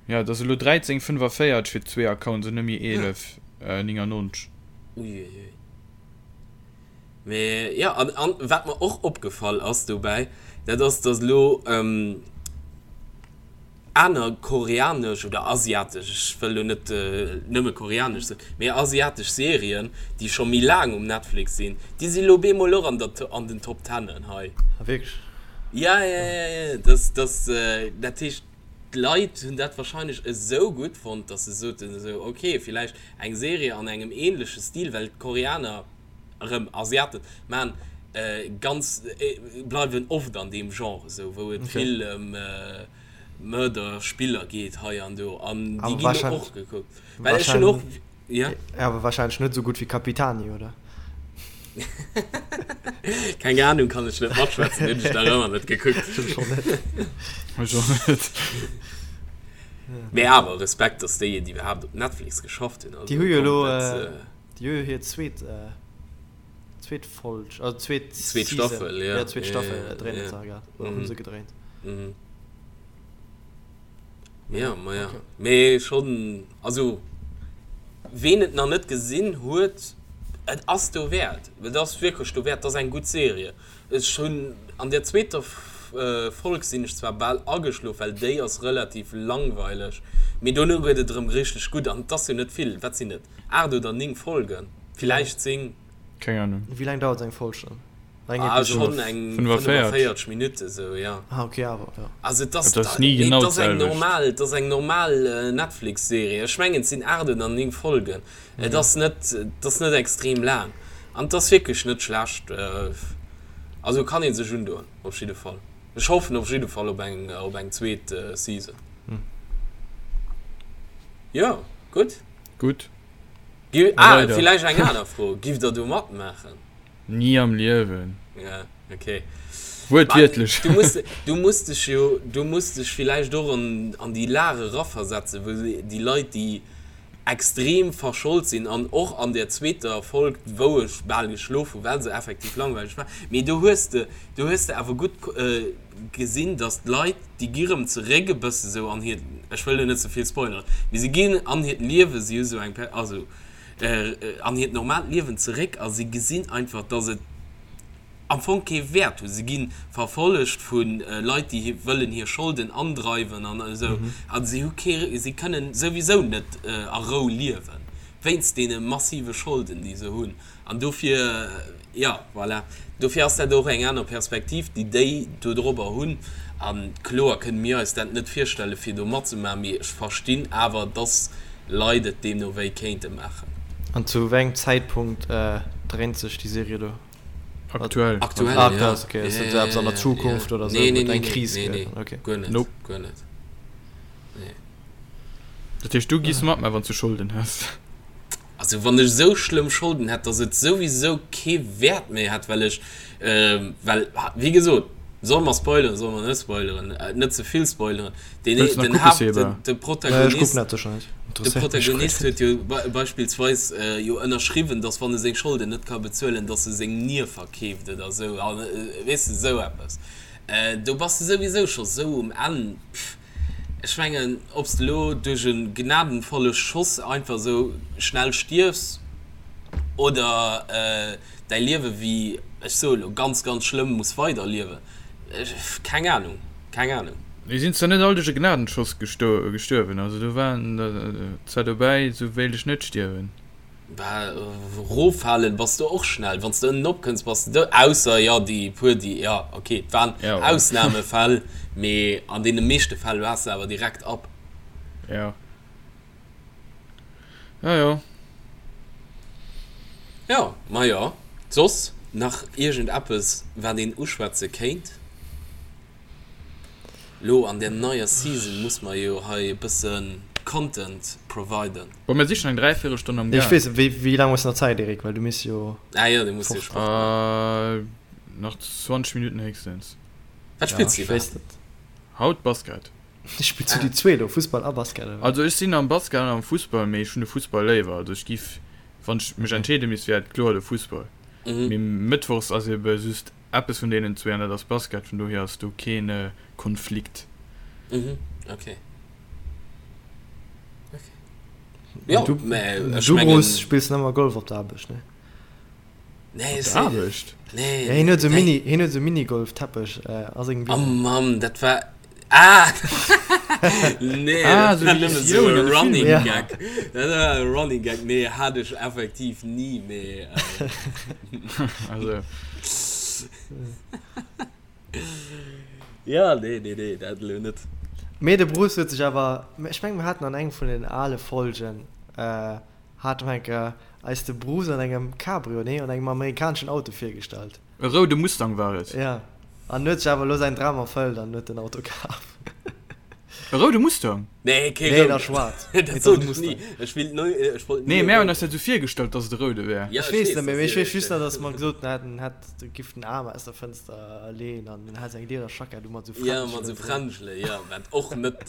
Speaker 1: Jo, et ass elo 13,45 fir zwee Accounts an net méi 11,99.
Speaker 3: Uiuiui. Mee jo, an, an wat mer och opgefall ass dobäi, dat ass, dass elo aner koreanesch oder asiatesch, ech wëll elo net nëmme koreanesch soen, mee asiatesch Serien, déi scho méi laang um Netflix sinn, déi si elo bemol och an der, an den Top Tennen hei.
Speaker 2: Ah wierklech?
Speaker 3: Ja, ja, ja, ja, das, das, dat heescht, d'Leit hunn dat wahrscheinlech esou gutt fonnt, dass se soten esou, okay, villäicht eng Serie an engem ähnleche Stil, well d'Koreaner, erëm Asiaten maan ganz, bleiwen oft an deem Genre esou, wou et vill ëm Mörder Spiller geet hei an do an déi ginn elo och gekuckt. Well ech hunn och,
Speaker 2: jo. Awer wahrscheinlech net esou gutt wéi Capitani, oder?
Speaker 3: Keng Ahnung, kann ech net matschwätzen, hunn ech nach ëmmer net gekuckt.
Speaker 2: Ech och net.
Speaker 1: Ech och net.
Speaker 3: Mee awer Respekt, dass déi et iwwerhaapt op Netflix geschafft hunn.
Speaker 2: Déi hu jo elo. Déi hu jo hir zweet zweet Folg, also zweet
Speaker 3: Zweet Staffel, ja.
Speaker 2: Ja, zweet Staffel dréinen se grad, oder hu se gedréint.
Speaker 3: Ja, ma ja. Mee schonn, also ween et nach net gesinn huet, et ass dowäert. Et ass wierklech dowäert, et ass eng gutt Serie. Ech hunn an der zweeter Folg sinn ech zwar bal ageschlof, well déi ass relativ langweileg, mee dono gëtt et erëm richteg gutt an et ass jo net vill, wat sinn et, 8 oder 9 Folgen, villäicht 10.
Speaker 1: Keng Ahnung.
Speaker 2: Wéi laang dauert eng Folg dann? Eng
Speaker 3: Ah,
Speaker 2: Episod?
Speaker 3: schonn eng
Speaker 1: 45.
Speaker 3: 45 Minutte sou, ja.
Speaker 2: Ah, okay, awer, ja.
Speaker 3: Also et ass,
Speaker 1: Et ass ni
Speaker 3: nee,
Speaker 1: genau
Speaker 3: et ass eng
Speaker 1: d'selwecht.
Speaker 3: normal, et ass eng normal Netflix-Serie. Ech mengen, et sinn 8 oder 9 Folgen. Et ass net, et ass net extrem laang. An et ass wierklech net schlecht. Also kann ee sech undoen, op jidde Fall. Ech hoffen op jidde Fall op eng, op eng zweet Season. Jo, gutt.
Speaker 1: Gutt.
Speaker 3: Gi, ah, villäicht eng aner Fro, Giff der do matmaachen?
Speaker 1: Ni am Liewen.
Speaker 3: Ja, okay.
Speaker 1: Wuertwiertlech.
Speaker 3: Du muss, du muss dech jo, du muss dech villäicht och an, an déi Lag eraversetzen, wou déi Leit, déi extrem verschold sinn an och an der zweeter Folg, wou ech bal geschlof hu well se effektiv langweileg war, mee do hues de, do hues de awer gutt gesinn, datt d'Leit, déi gi rëm zeréck e bësse sou an hiert, ech wëll elo net ze vill spoileren, mee se ginn an hiert Liewen, si hu sou eng, also an hiert normaalt Liewen zeréck a si gesinn einfach, datt et am Fong kee Wäert hunn. Se gi verfollegt vu Leit, déi wëllen hir Scholden andreiwen an esou. A si hu kee, si kënnen souwisou net a Rou liewen, wéinst deene massive Scholden, déi se hunn. An dofir, jo, voilà, dofir ass dat och eng aner Perspektiv, déi déi dodrobber hunn. A kloer kënne mir eis dat net virstellen, fir do matzemaachen, mee ech verstinn awer, dass Leit et deemno wéi kéinte maachen.
Speaker 2: An zu wéi engem Zäitpunkt dréint sech déi Serie do?
Speaker 1: Aktuell.
Speaker 3: Aktuell,
Speaker 2: ah,
Speaker 3: ja.
Speaker 2: Okay, okay. Ist ja, ja, an der Zukunft
Speaker 3: ja.
Speaker 2: oder so?
Speaker 3: Nee, nee, nee,
Speaker 2: eng Kris
Speaker 3: nee, nee,
Speaker 2: gëtt. Okay.
Speaker 3: Guer net.
Speaker 1: Nope.
Speaker 3: Guer net. Nee.
Speaker 1: Dat heescht, du giss mat, mä wann s du Scholden häss.
Speaker 3: Also wann ech esou schlëmm Scholden hätt, dass et souwisou kee Wäert méi hätt, well ech, äh, well, wéi gesot, solle mer spoileren, solle mer net spoileren, äh, net ze vill spoileren, Den,
Speaker 1: Wëlls nach
Speaker 3: den
Speaker 1: kucke,
Speaker 3: Haupt,
Speaker 1: Seba?
Speaker 3: den, de
Speaker 2: Ech kucken
Speaker 3: Protagonist,
Speaker 2: dat sécher net.
Speaker 3: de
Speaker 2: Interesséiert mech guer
Speaker 3: Protagonist
Speaker 2: net.
Speaker 3: huet jo be beispillsweis äh, jo ënnerschriwwen, dass wann e seng Scholden net ka bezuelen, dass e seng Nier verkeeft oder esou, an äh, weess de, esou eppes. Äh, do bass de souwisou scho sou um Enn. Pff, ech mengen, ob s de elo duerch e gnadenvolle Schoss einfach esou schnell stierfs oder äh, däi Liewe wéi, ech soe lo, ganz, ganz schlëmm muss weiderliewen, ech, keng Ahnung, keng Ahnung.
Speaker 1: Déi sinn zwar net all duerch e Gnadenschoss gestuerwen, also do waren der zwar dobäi, sou wéilt ech net stierwen.
Speaker 3: Bah, roffalen bass de och schnell, wann s de ënnen opkënns bass de dout, ausser jo déi puer déi, jo ok, et waren Ausnamefäll, mee an deene meeschte Fäll waars de awer direkt ab.
Speaker 1: Jo. Ja, jo.
Speaker 3: Jo, majo. Soss nach iergend eppes wat een uschwätze kéint? Lo an der neier Season muss mer jo hei e bësse Content providen.
Speaker 1: Bon, mir si schon eng Dräivirelstonn am
Speaker 2: Ech
Speaker 1: Gaang.
Speaker 2: weess, wéi, wéi laang hues de nach Zäit, Eric? Well du misst jo
Speaker 3: Ah jo, du muss jo
Speaker 2: fort.
Speaker 3: Sport maachen.
Speaker 1: Äh, nach 20 Minutten héchstens.
Speaker 3: Wat
Speaker 2: Ja,
Speaker 3: spills du
Speaker 2: ech weess
Speaker 3: iwwerhaapt?
Speaker 2: net.
Speaker 1: Haut Basket.
Speaker 2: Spills du déi zwee do, Fussball a Basket, oder wéi?
Speaker 1: Also ech sinn am Basket an am Fussball, mee ech hunn de Fussball léiwer. Also ech giff, wann ech mech entscheede misst, wär et kloer de Fussball. Mee mëttwochs ass ebe just eppes vun deenen zwee an dat ass Basket, vun dohier ass do keen Konflikt.
Speaker 3: Mhm, okay. Okay. Jo,
Speaker 2: Du,
Speaker 3: mä ech
Speaker 2: du
Speaker 3: mengen.
Speaker 2: Bruce, spills nëmmer Golf op der Aarbecht, ne?
Speaker 3: Nee,
Speaker 1: Op der Aarbecht?
Speaker 3: Nee,
Speaker 2: Ja, hien huet esou
Speaker 3: nee.
Speaker 2: Mini, hien huet esou Minigolf-Teppech a sengem
Speaker 3: Oh
Speaker 2: Büro.
Speaker 3: Mann, dat war. Ah! Nee,
Speaker 1: Ah,
Speaker 3: dat
Speaker 1: sou
Speaker 3: war
Speaker 1: wéi
Speaker 3: nëmme sou
Speaker 1: Sioun
Speaker 3: e
Speaker 1: an de
Speaker 3: Running
Speaker 1: Filmen.
Speaker 2: Ja.
Speaker 3: Gag. Dat war e Running Gag. Nee, hat ech effektiv ni, mee.
Speaker 1: Also.
Speaker 3: Ja, nee, nee, nee, dat elo net.
Speaker 2: Mee de Bruce huet sech awer, ech mengen, mir haten an engem vun den ale Folgen, Hat mer eng Kéier eis de Bruce an engem Cabrio, nee, an engem amerikaneschen Auto virgestallt.
Speaker 1: E roude Mustang war et.
Speaker 2: Ja, an huet sech awer elo säin Dram erfëllt an huet den Auto kaf.
Speaker 1: E roude Mustang?
Speaker 3: Nee, kee
Speaker 2: Nee,
Speaker 3: rouden.
Speaker 2: nach schwaarz.
Speaker 3: Dat
Speaker 2: Mee et ass
Speaker 3: sot
Speaker 2: e
Speaker 3: ech
Speaker 2: Mustang.
Speaker 3: ni. Ech willt neu, ech wollt ni
Speaker 1: Nee,
Speaker 3: e
Speaker 1: mär hunn
Speaker 3: rouden.
Speaker 1: eis dat esou virgestallt, dass et e roude wär.
Speaker 3: Ja,
Speaker 2: Ech
Speaker 3: ech
Speaker 2: weess
Speaker 3: weess,
Speaker 2: net méi,
Speaker 3: dass
Speaker 2: mee ech
Speaker 3: dir
Speaker 2: weess just nach,
Speaker 3: dat.
Speaker 2: dass mer gesot haten, en hätt, giff den Aarm aus der Fënster leeën an en hätt seng Liederjackett u mat esou
Speaker 3: Ja, mat esou
Speaker 2: Fränschelen drun.
Speaker 3: Fränschele, ja, wat och net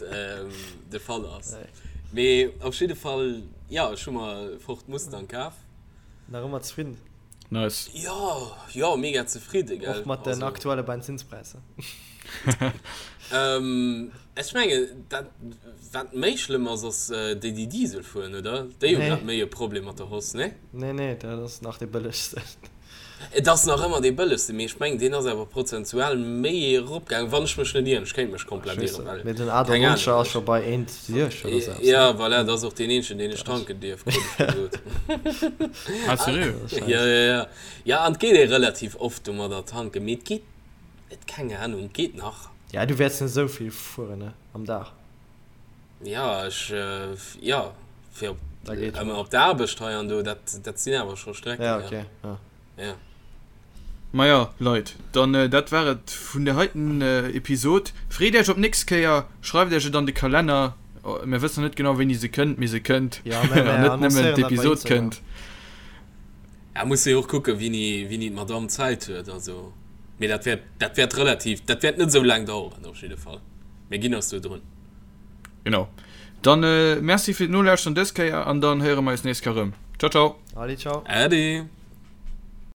Speaker 3: de Fall ass.
Speaker 2: Nee.
Speaker 3: Mee op jidde Fall, jo, ech hu mer e Ford Mustang kaf.
Speaker 2: Nach ëmmer zefridden?
Speaker 1: Nice.
Speaker 3: Jo, jo, mega zefridde, gell.
Speaker 2: Och mat den
Speaker 3: Also.
Speaker 2: aktuelle Benzinspräisser?
Speaker 3: Ech mengen, dat wat méi schlëmm ass, ass déi, déi Diesel fueren, oder? Déi hu
Speaker 2: Nee.
Speaker 3: grad méi e Problem mat der Hausse, nee?
Speaker 2: Nee, nee, dat ass nach dee bëllegsten.
Speaker 3: Et ass nach ëmmer dee bëllegsten, mee ech mengen deen ass awer prozentual méi eropgaangen, wann ech mech net ieren. Ech kéint mech komplett ieren, well
Speaker 2: Mee den keng Ahnung. A98 ass scho bei 1,60
Speaker 3: oder sou eppes, ne? Ja, voilà, dat ass och deen eenzegen, deen ech tanken dierf, krut ech gesot.
Speaker 1: Ah, seriö?
Speaker 3: Ja, ja, ja. Ja, an et geet ee relativ oft domadder tanken, mee et geet, et, keng Ahnung, et geet nach.
Speaker 2: Ja, du wäerts net esou vill fueren, ne, am Dag.
Speaker 3: Ja, ech, jo, fir op, ëmmer op d'Aarbecht hei an do, dat, dat sinn awer scho Strecken,
Speaker 2: ja. Ja, okay, ja.
Speaker 3: Ja.
Speaker 1: Maja, Leit, dann dat war et vun der heiten Episod. Freet Iech op d'nächst Kéier, schreift Iech et an de Kalenner. Mir wëssen nach net genau, wéini se kënnt, mee se kënnt.
Speaker 2: Ja, mä
Speaker 1: mir An net nëmmen
Speaker 2: annoncéieren dat bei
Speaker 1: d'Episod
Speaker 2: Instagram.
Speaker 1: kënnt.
Speaker 3: Ja, muss jo och kucken, wéini, wéini d'Madame Zäit huet, also, mee dat wäert, dat wäert relativ, dat wäert net esou laang daueren op jidde Fall. Mir ginn eis do drun.
Speaker 1: Genau. Dann Merci fir d'Nolauschteren dës Kéier an dann héiere mer eis nächst Kéier erëm. Ciao, ciao.
Speaker 2: Allez, ciao.
Speaker 3: Äddi.